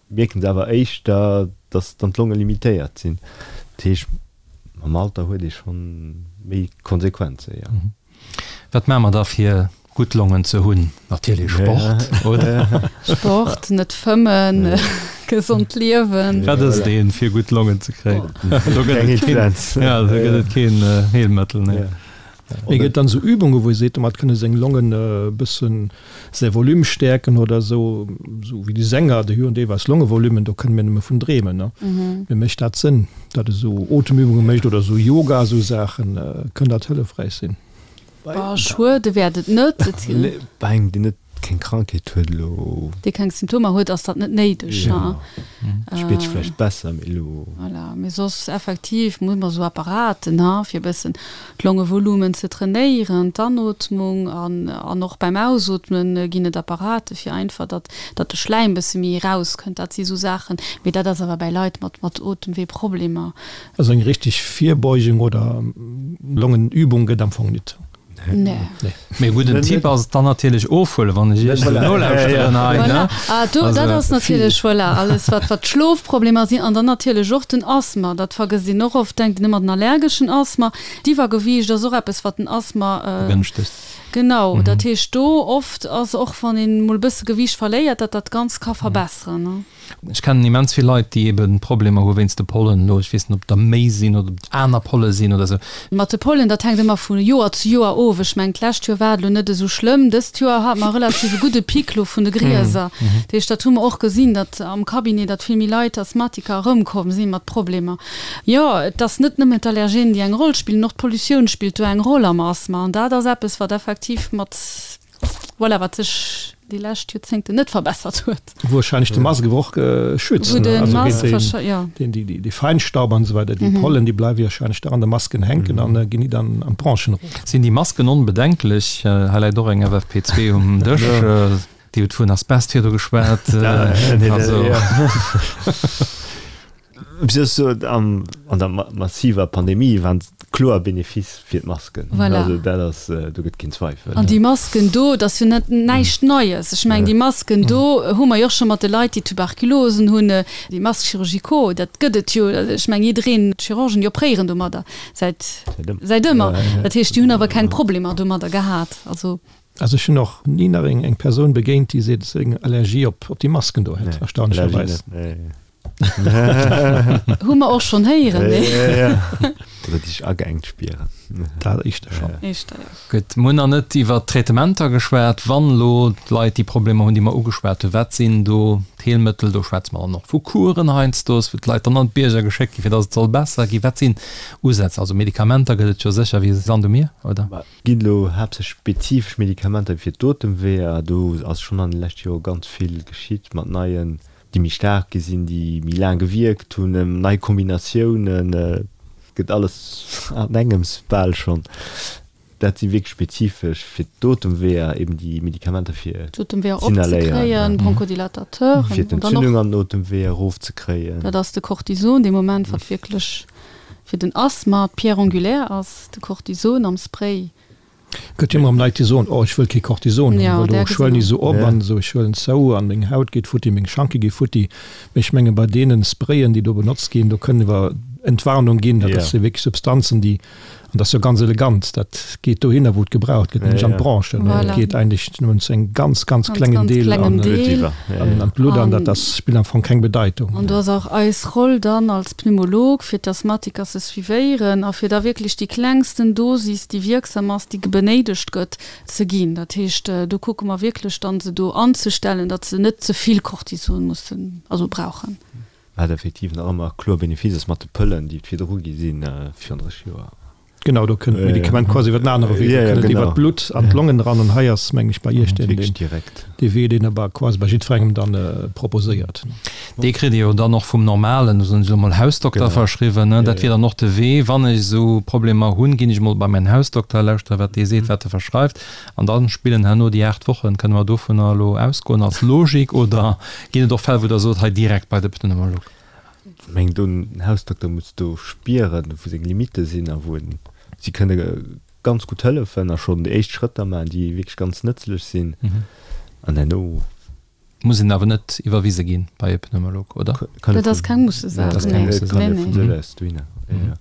Speaker 4: mierken se awer éischter, datt dann d'Longe limitéiert sinn. Dat heescht, mam Alter huet ee schonn méi Konsequenzen, jo.
Speaker 2: Wat maache mer da fir gutt Longen ze hunn? Natierlech Sport, oder?
Speaker 5: Sport, net fëmmen, gesond liewen.
Speaker 2: Wat ass deen, fir gutt Longen ze kréien? Do gëtt et keen, ja, do gëtt et keen Heelmëttel, nee.
Speaker 3: Mee gëtt dann esou Übungen, wou ee seet, domat kënne seng Longen e bëssen säi Volume stäerken oder esou, esou wéi déi Sänger, déi hunn deelweis Longevolumen, do kënne mir nëmme vun dreemen, ne? Mee mécht dat Sënn, datt ee sou Otemübunge mécht oder esou Yoga, esou Saachen, kënn dat hëllefräich sinn?
Speaker 5: Bah, schuede wäert et net.
Speaker 4: Bei engem, deen net keng Krankheet huet elo.
Speaker 5: Dee keng Symptomer huet, ass dat net néideg.
Speaker 4: Jo, spiert sech vläicht besser, mee elo.
Speaker 5: Voilà, mee soss effektiv muss mer esou Apparaten, ha, fir e bëssen d'Longevolumen ze trainéieren, d'Anootmung an an och beim Ausootmen ginn et Apparate fir einfach, datt datt de Schläim bësse méi erauskënnt. Dat si sou Saachen, mee dat ass awer bäi Leit mat mat Otemweeproblemer.
Speaker 3: Also eng richtig Virbeugung oder Longenübung gëtt am Fong nit.
Speaker 5: Nee.
Speaker 2: Mee e gudden Tipp ass et dann natierlech ofhuelen, wann ech Iech esou nolauschteren hei,
Speaker 5: ne? Voilà, ah do, dat ass natierlech, voilà, alles wat wat d'Schlofproblemer sinn an dann natierlech och den Asthma, dat vergësst een och oft, denkt een ëmmer den allergeschen Asthma. D'Iwwergewiicht ass och eppes wat den Asthma
Speaker 2: Begënschtegt.
Speaker 5: Genau, dat heescht do oft ass och wann een mol e bësse Gewiicht verléiert, dat dat Ganzt ka verbesseren, ne?
Speaker 2: Ech kennen immens vill Leit, déi ebe Problemer hu wéinst de Pollen elo. Ech weess net, ob der méi sinn oder ob et aner Polle sinn oder esou.
Speaker 5: Mat de Pollen, dat hänkt ëmmer vu Joer zu Joer of. Ech mengen, d'lescht Joer war et elo net esou schlëmm. Dëst Joer hate mer relativ e gudde Pic elo vun de Grieser. Dat heescht, dat hu mer och gesinn, datt am Cabinet, datt vill méi Leit, Asthmatiker, erëmkomm si mat Problemer. Jo, et ass net nëmmen d'Allergenen, déi eng Roll spillen, och d'Pollutioun spillt do eng Roll am Asthma. An dat ass eppes, wat effektiv mat. Voilà, wat sech déi lescht Joerzéngten net verbessert huet.
Speaker 3: Warscheinlech de Mask awer och schützen,
Speaker 5: Wou de Mask wahrscheinlech, jo.
Speaker 3: Deen, déi, dee Feinstaub an esou weider, déi Pollen, déi bleiwe warscheinlech da an de Masken hänken an ginn nit an d'Bronchen erof.
Speaker 2: Sinn déi Masken onbedenklech? Hei läit och eng FFP2 um Dësch. Dir hutt vun Asbest virdu geschwat. Also.
Speaker 4: An der massiver Pandemie waren kloer Benefice fir d'Masken.
Speaker 5: Voilà.
Speaker 4: Also dat ass, do gëtt keen Zweifel.
Speaker 5: An déi Masken do, dat ass jo net näischt Neies. Ech mengen, déi Masken do hu mer jo och scho mat de Leit, déi Tuberkulosen hunn, déi Masques chirurgicaux, dat gëtt et jo. Ech mengen, jiddereen, d'Chirurgen, déi opréieren domadder säit, säit ëmmer. Dat heescht, déi hunn awer keng Problemer domadder gehat. Also.
Speaker 3: Also ech hunn och ni nach eng Persoun begéint, déi seet, dass se eng Allergie op déi Masken do hätt, erstaunlecherweis.
Speaker 5: Hu mer och schonn héieren, nee.
Speaker 4: Oder déi sech ageengt spieren.
Speaker 3: Dat éischter schonn.
Speaker 5: Éischter, jo.
Speaker 2: Gutt, mir hunn nach net iwwert d'Traitementer geschwat. Wann elo d'Leit déi Problemer hunn, déi mer ugeschwat hunn, wat sinn do d'Heelmëttel? Do schwätze mer dann och vu Kuren heiansdo, wou d'Leit dann an d'Bierger geschéckt ginn, fir datt et soll besser ginn. Wat sinn Usätz? Also Medikamenter gëtt et jo sécher wéi Sand um Mier, oder?
Speaker 4: Et ginn elo haaptsächlech spezifesch Medikamenter fir d'Otemweeër. Do ass schonn an de leschte Jore ganz vill geschitt mat neien déi méi staark gi sinn, déi méi laang gewierkt hunn, nei Kombinatiounen, gëtt alles an engems bal schonn. Dat si wierklech spezifesch fir d'Otemweeër, eben déi Medikamenter fir
Speaker 5: D'Otemweeër opzekréien, Bronchodilatateuren,
Speaker 4: fir d'Entzündung an den Otemweeër erofzekréien.
Speaker 5: Dat ass de Cortison dee Moment, wat wierklech fir den Asthma d'Pierre angulaire ass, de Cortison am Spray.
Speaker 3: Gëtt jo ëmmer erëm Leit déi soen, oh ech wëll kee Cortison hunn, well do schwëllen ech esou op an esou, ech huelen zou an meng Haut geet futti, meng Schanke gi futti. Mee ech menge bei deene Sprayen déi do benotzt ginn, do kënne mer Entwarnung ginn, dat ass jo wierklech Substanzen déi, an dat ass jo ganz elegant, dat geet dohinner wou et gebraucht gëtt, nämlech an d'Bronchen. Et geet eigentlech nëmmen zu engem ganz, ganz klengen Deel an d'Blutt an dat ass, spillt am Fong keng Bedeitung.
Speaker 5: An do ass och eis Roll dann als Pneumolog, fir d'Asthmatiker ze suivéieren a fir da wierklech déi klengsten Dosis, déi wierksam ass, déi benéidegt gëtt, ze ginn. Dat heescht, do kucke mer wierklech dann, se do anzestellen, datt se net ze vill Cortison mussen, also brauchen.
Speaker 4: Wat effektiv nach ëmmer kloer Benefice ass mat de Pëllen, déi et virdru gi sinn, virun 30 Joer.
Speaker 3: Genau, do kënnt d'Medikament quasi iwwer den anere Wee, do kënnt et iwwer d'Blutt an d'Longen eran. An hei ass, mengen ech, bei Iech deen, dee Wee, deen der quasi bei jiddwerengem dann proposéiert.
Speaker 2: Dee kritt Dir jo dann och vum normalen, soen ech elo mol, Hausdokter verschriwwen. Dat wier dann och de Wee, wann ech esou Problemer hunn, ginn ech emol bei mäin Hausdokter, lauschtere wat dee seet, wat e verschreift, an da spillen herno déi 8 Wochen. Kënne mer dovunner elo ausgoen als Logik oder ginn et och Fäll, wou Der sot, hei direkt bei de Pneumolog?
Speaker 4: Ech mengen, den Hausdokter muss do spieren, wou seng Limitte sinn a wou en, si kënne ganz gutt hëllefen a schonn déi éischt Schrëtter maachen, déi wierklech ganz nëtzlech sinn an herno.
Speaker 2: Muss een awer net iwwerwise ginn bei e Pneumolog, oder?
Speaker 5: Dat ass keng Mussesaach, nee.
Speaker 4: Kann ee vun sech aus dohinner goen, jo.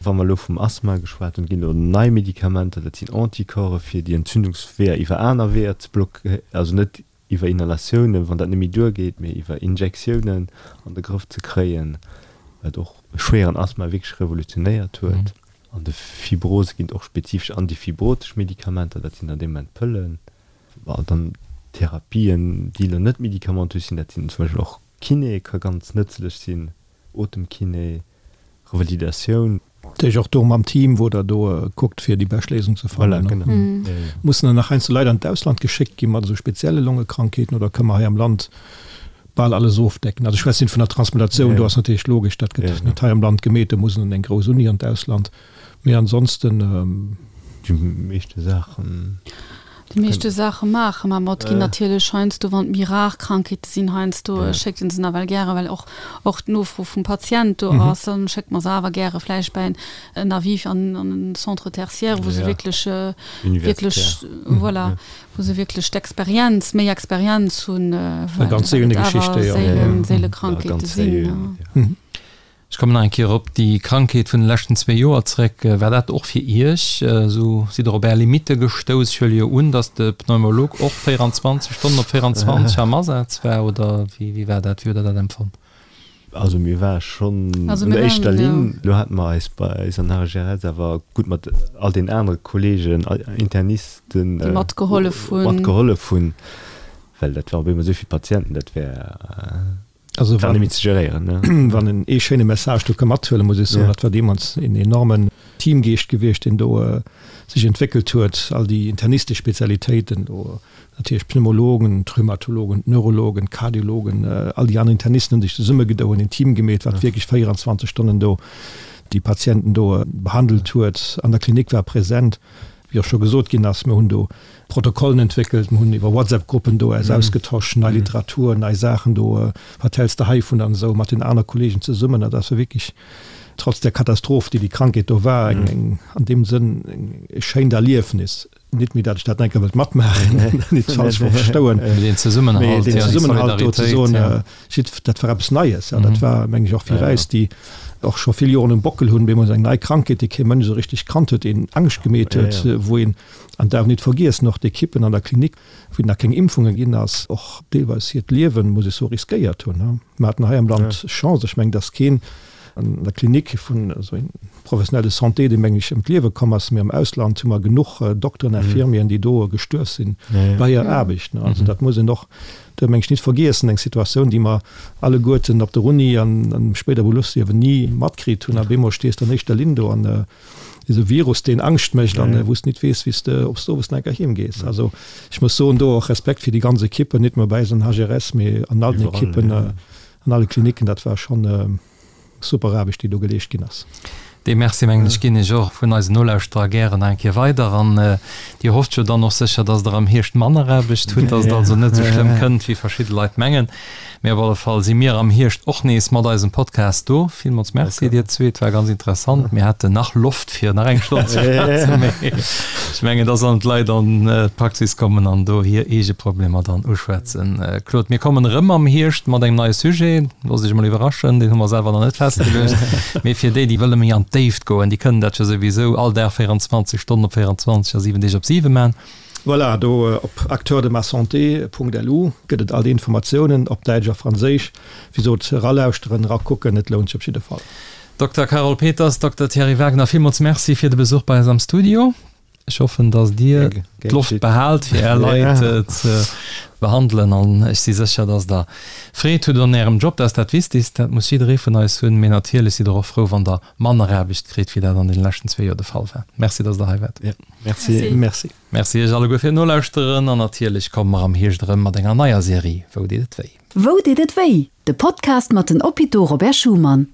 Speaker 4: Wa mer elo vum Asthma geschwat hunn, ginn elo nei Medikamenter, dat sinn Anticorpse fir déi Entzündungsweeër iwwer aner Weeër ze blockéieren, also net iwwer Inhalatiounen, wann dat net méi duergeet, mee iwwer Injektiounen an de Grëff ze kréien, wat och schwéieren Asthma wierklech revolutionéiert huet. An de Fibrose ginn et och spezifesch antifibrotesch Medikamenter, dat sinn dann dee Moment Pëllen. Bon, dann Therapien, déi elo net medikamentös sinn, dat sinn zum Beispill och Kiné ka ganz nëtzlech sinn, Otemkiné, Revalidatioun.
Speaker 3: Dat heescht och do mam Team, wou Der do kuckt, fir déi bescht Léisung ze fannen.
Speaker 4: Voilà, genau.
Speaker 3: Mussen dann nach heiansdo Leit an d'Ausland geschéckt gi mat esou spezielle Longekrankheeten oder kënne mer hei am Land bal alles ofdecken? Also ech schwätzen vun der Transplantatioun, do ass natierlech logesch, dat gëtt net hei am Land gemeet, do muss en an eng grouss Uni an d'Ausland. Mee ansonsten.
Speaker 4: Déi meeschte Saachen.
Speaker 5: Déi meeschte Saache maache mer mat. Ginn natierlech heiansdo, wann et méi rar Krankheete sinn, heiansdo schéckt een se nawell gären, well och och d'Nofro vum Patient do ass, dann schéckt mer se awer gäre vläicht bei en Avis an en Centre tertiaire, wou se wierklech, wierklech, voilà, wou se wierklech d'Experienz, méi Experienz hunn, well
Speaker 3: et awer
Speaker 5: seelen, seele Krankheete sinn.
Speaker 2: Ech kommen nach eng Kéier op déi Krankheet vun de leschten zwee Joer zréck. War dat och fir Iech esou? Sidd Der op Är Limitte gestouss? Ech huele jo un, datt de Pneumolog och 24 Stonnen op 24 am Asaz war, oder wéi war dat? Wéi hutt Der dat empfonnt?
Speaker 4: Also mir ware schonn an der éischter Linn. Elo hate mer eis bei eis an HGRS awer gutt mat all den anere Kolleegen, Internisten,
Speaker 5: déi matgehollef hunn,
Speaker 4: matgehollef hunn, well dat war op eemol esou vill Patienten, dat wär.
Speaker 3: Also wann, ze geréieren, ne? Wann en ee schéine Message do ka mathuelen, muss ech soen, dat war deemools een enormen Teamgeescht gewiescht, deen do sech entwéckelt huet, all déi internistesch Spezialitéiten do, natierlech d'Pneumologen, d'Rhumatologen, d'Neurologen, d'Kardiologen, all déi aner Internisten hunn sech zesummegedoen, een Team gemeet, wat wierklech 24 Stonnen do déi Patienten do behandelt huet, an der Klinik war present. Wéi och scho gesot ginn ass, mir hunn do Protokollen entwéckelt, mir hunn iwwer WhatsApp-Gruppen do eis ausgetosch, nei Literatur, nei Saachen do, wat häls de heivun an esou mat den aner Kollegen zesummen. Dat ass wierklech, trotz där Katastroph, déi déi Krankheet do war, eng, eng an deem Sënn eng e schéint Erliefnis. Nit méi, dat ech dat enker wëllt matmaachen, nit falsch verstouen,
Speaker 2: Mee deen Zesummenhalt,
Speaker 3: mee deen Zesummenhalt do ze soen, Jidd, dat war eppes Neies. Ja, dat war, meng ech, och fir eis, déi och scho vill Joren um Bockel hunn, bemol eng nei Krankheet, déi kee Mënsch esou richteg kannt huet, een Angscht gemeet huet, wou een, an darf nit vergiessen, och d'Ekippen an der Klinik, wou nach keng Impfunge ginn ass, och deelweis hiert Liewen, muss ech soen, riskéiert hunn. Mer haten hei am Land Chance, ech mengen, dass keen. An der Klinik vun esou engem Professionnel de santé, dee meng ech ëm d'Liewe komm ass, mee am Ausland hu mer genuch Dokteren, Infirmieren, déi do gestuerf sinn bei hirer Aarbecht. Also dat muss een och do meng ech nit vergiessen, eng Situatioun, déi mer alleguerten op der Uni an am spéider Beruffsliewen ni matkritt hunn. A bemol stees de an éischter Linn do an esou Virus, deen Angscht mécht an wou s de nit weess, wéi s de, ob s de owes nach eng Kéier heem gees. Also ech muss soen, do och Respekt fir déi ganz Ekippen, nit nëmme bei eis an HRS, mee an all den Ekippen, an alle Klinicken. Dat war schonn super Aarbecht, déi do geleescht ginn ass.
Speaker 2: Dee Merci, mengen ech, ginn ech och vun eisen Nolauschterer gären nach eng Kéier weider. An Dir hofft jo dann och sécher, dass Der am Hierscht manner Aarbecht hutt, dass et also net esou schlëmm kënnt, wéi verschidde Leit mengen. Mee op alle Fall si mir am Hierscht och nees mat eisem Podcast do. Villmools Merci dir zwee, et war ganz interessant. Mir haten nach Loft fir nach eng Stonn ze schwätzen, mee ech mengen, da sollen d'Leit an d'Praxis kommen an do hir eege Problemer dann uschwätzen. Claude, mir kommen erëm am Hierscht mat engem neie Sujet. Loosst Iech emol iwwerraschen, deen hu mer selwer nach net festgeluecht. Mee fir déi, déi wëlle méi an d'Déift goen, déi kënnen dat jo souwisou all Dag 24 Stonnen op 24 a 7 Deeg op 7 man.
Speaker 3: Voilà, do op acteurdemasanté.lu gëtt et all déi Informatiounen op Däitsch a Franséisch. Wéi sot, eralauschteren, erakucken, et lount sech op jidde Fall.
Speaker 2: Dokter Carole Peters, Dokter Thierry Wagner, villmools Merci fir de Besuch bei eis am Studio. Ech hoffen, dass Dir d'Loft behaalt, fir Är Leit ze behandelen. An ech si sécher, dass Der Freed hutt un Ärem Job. Dat ass dat Wichtigst. Dat muss jidderee vun eis hunn. Mee natierlech sidd Der och frou, wann Der manner Aarbecht kritt, wéi dat an deene leschten zwee Joer de Fall war. Merci, dass Der hei waart.
Speaker 3: Merci.
Speaker 2: Merci. Merci Iech alleguer fir d'Nolauschteren. An natierlech komme mer am Hierscht erëm mat enger neier Serie Wou deet et wéi?
Speaker 1: Wou deet et wéi? De Podcast mat den Hôpitaux Robert Schuman.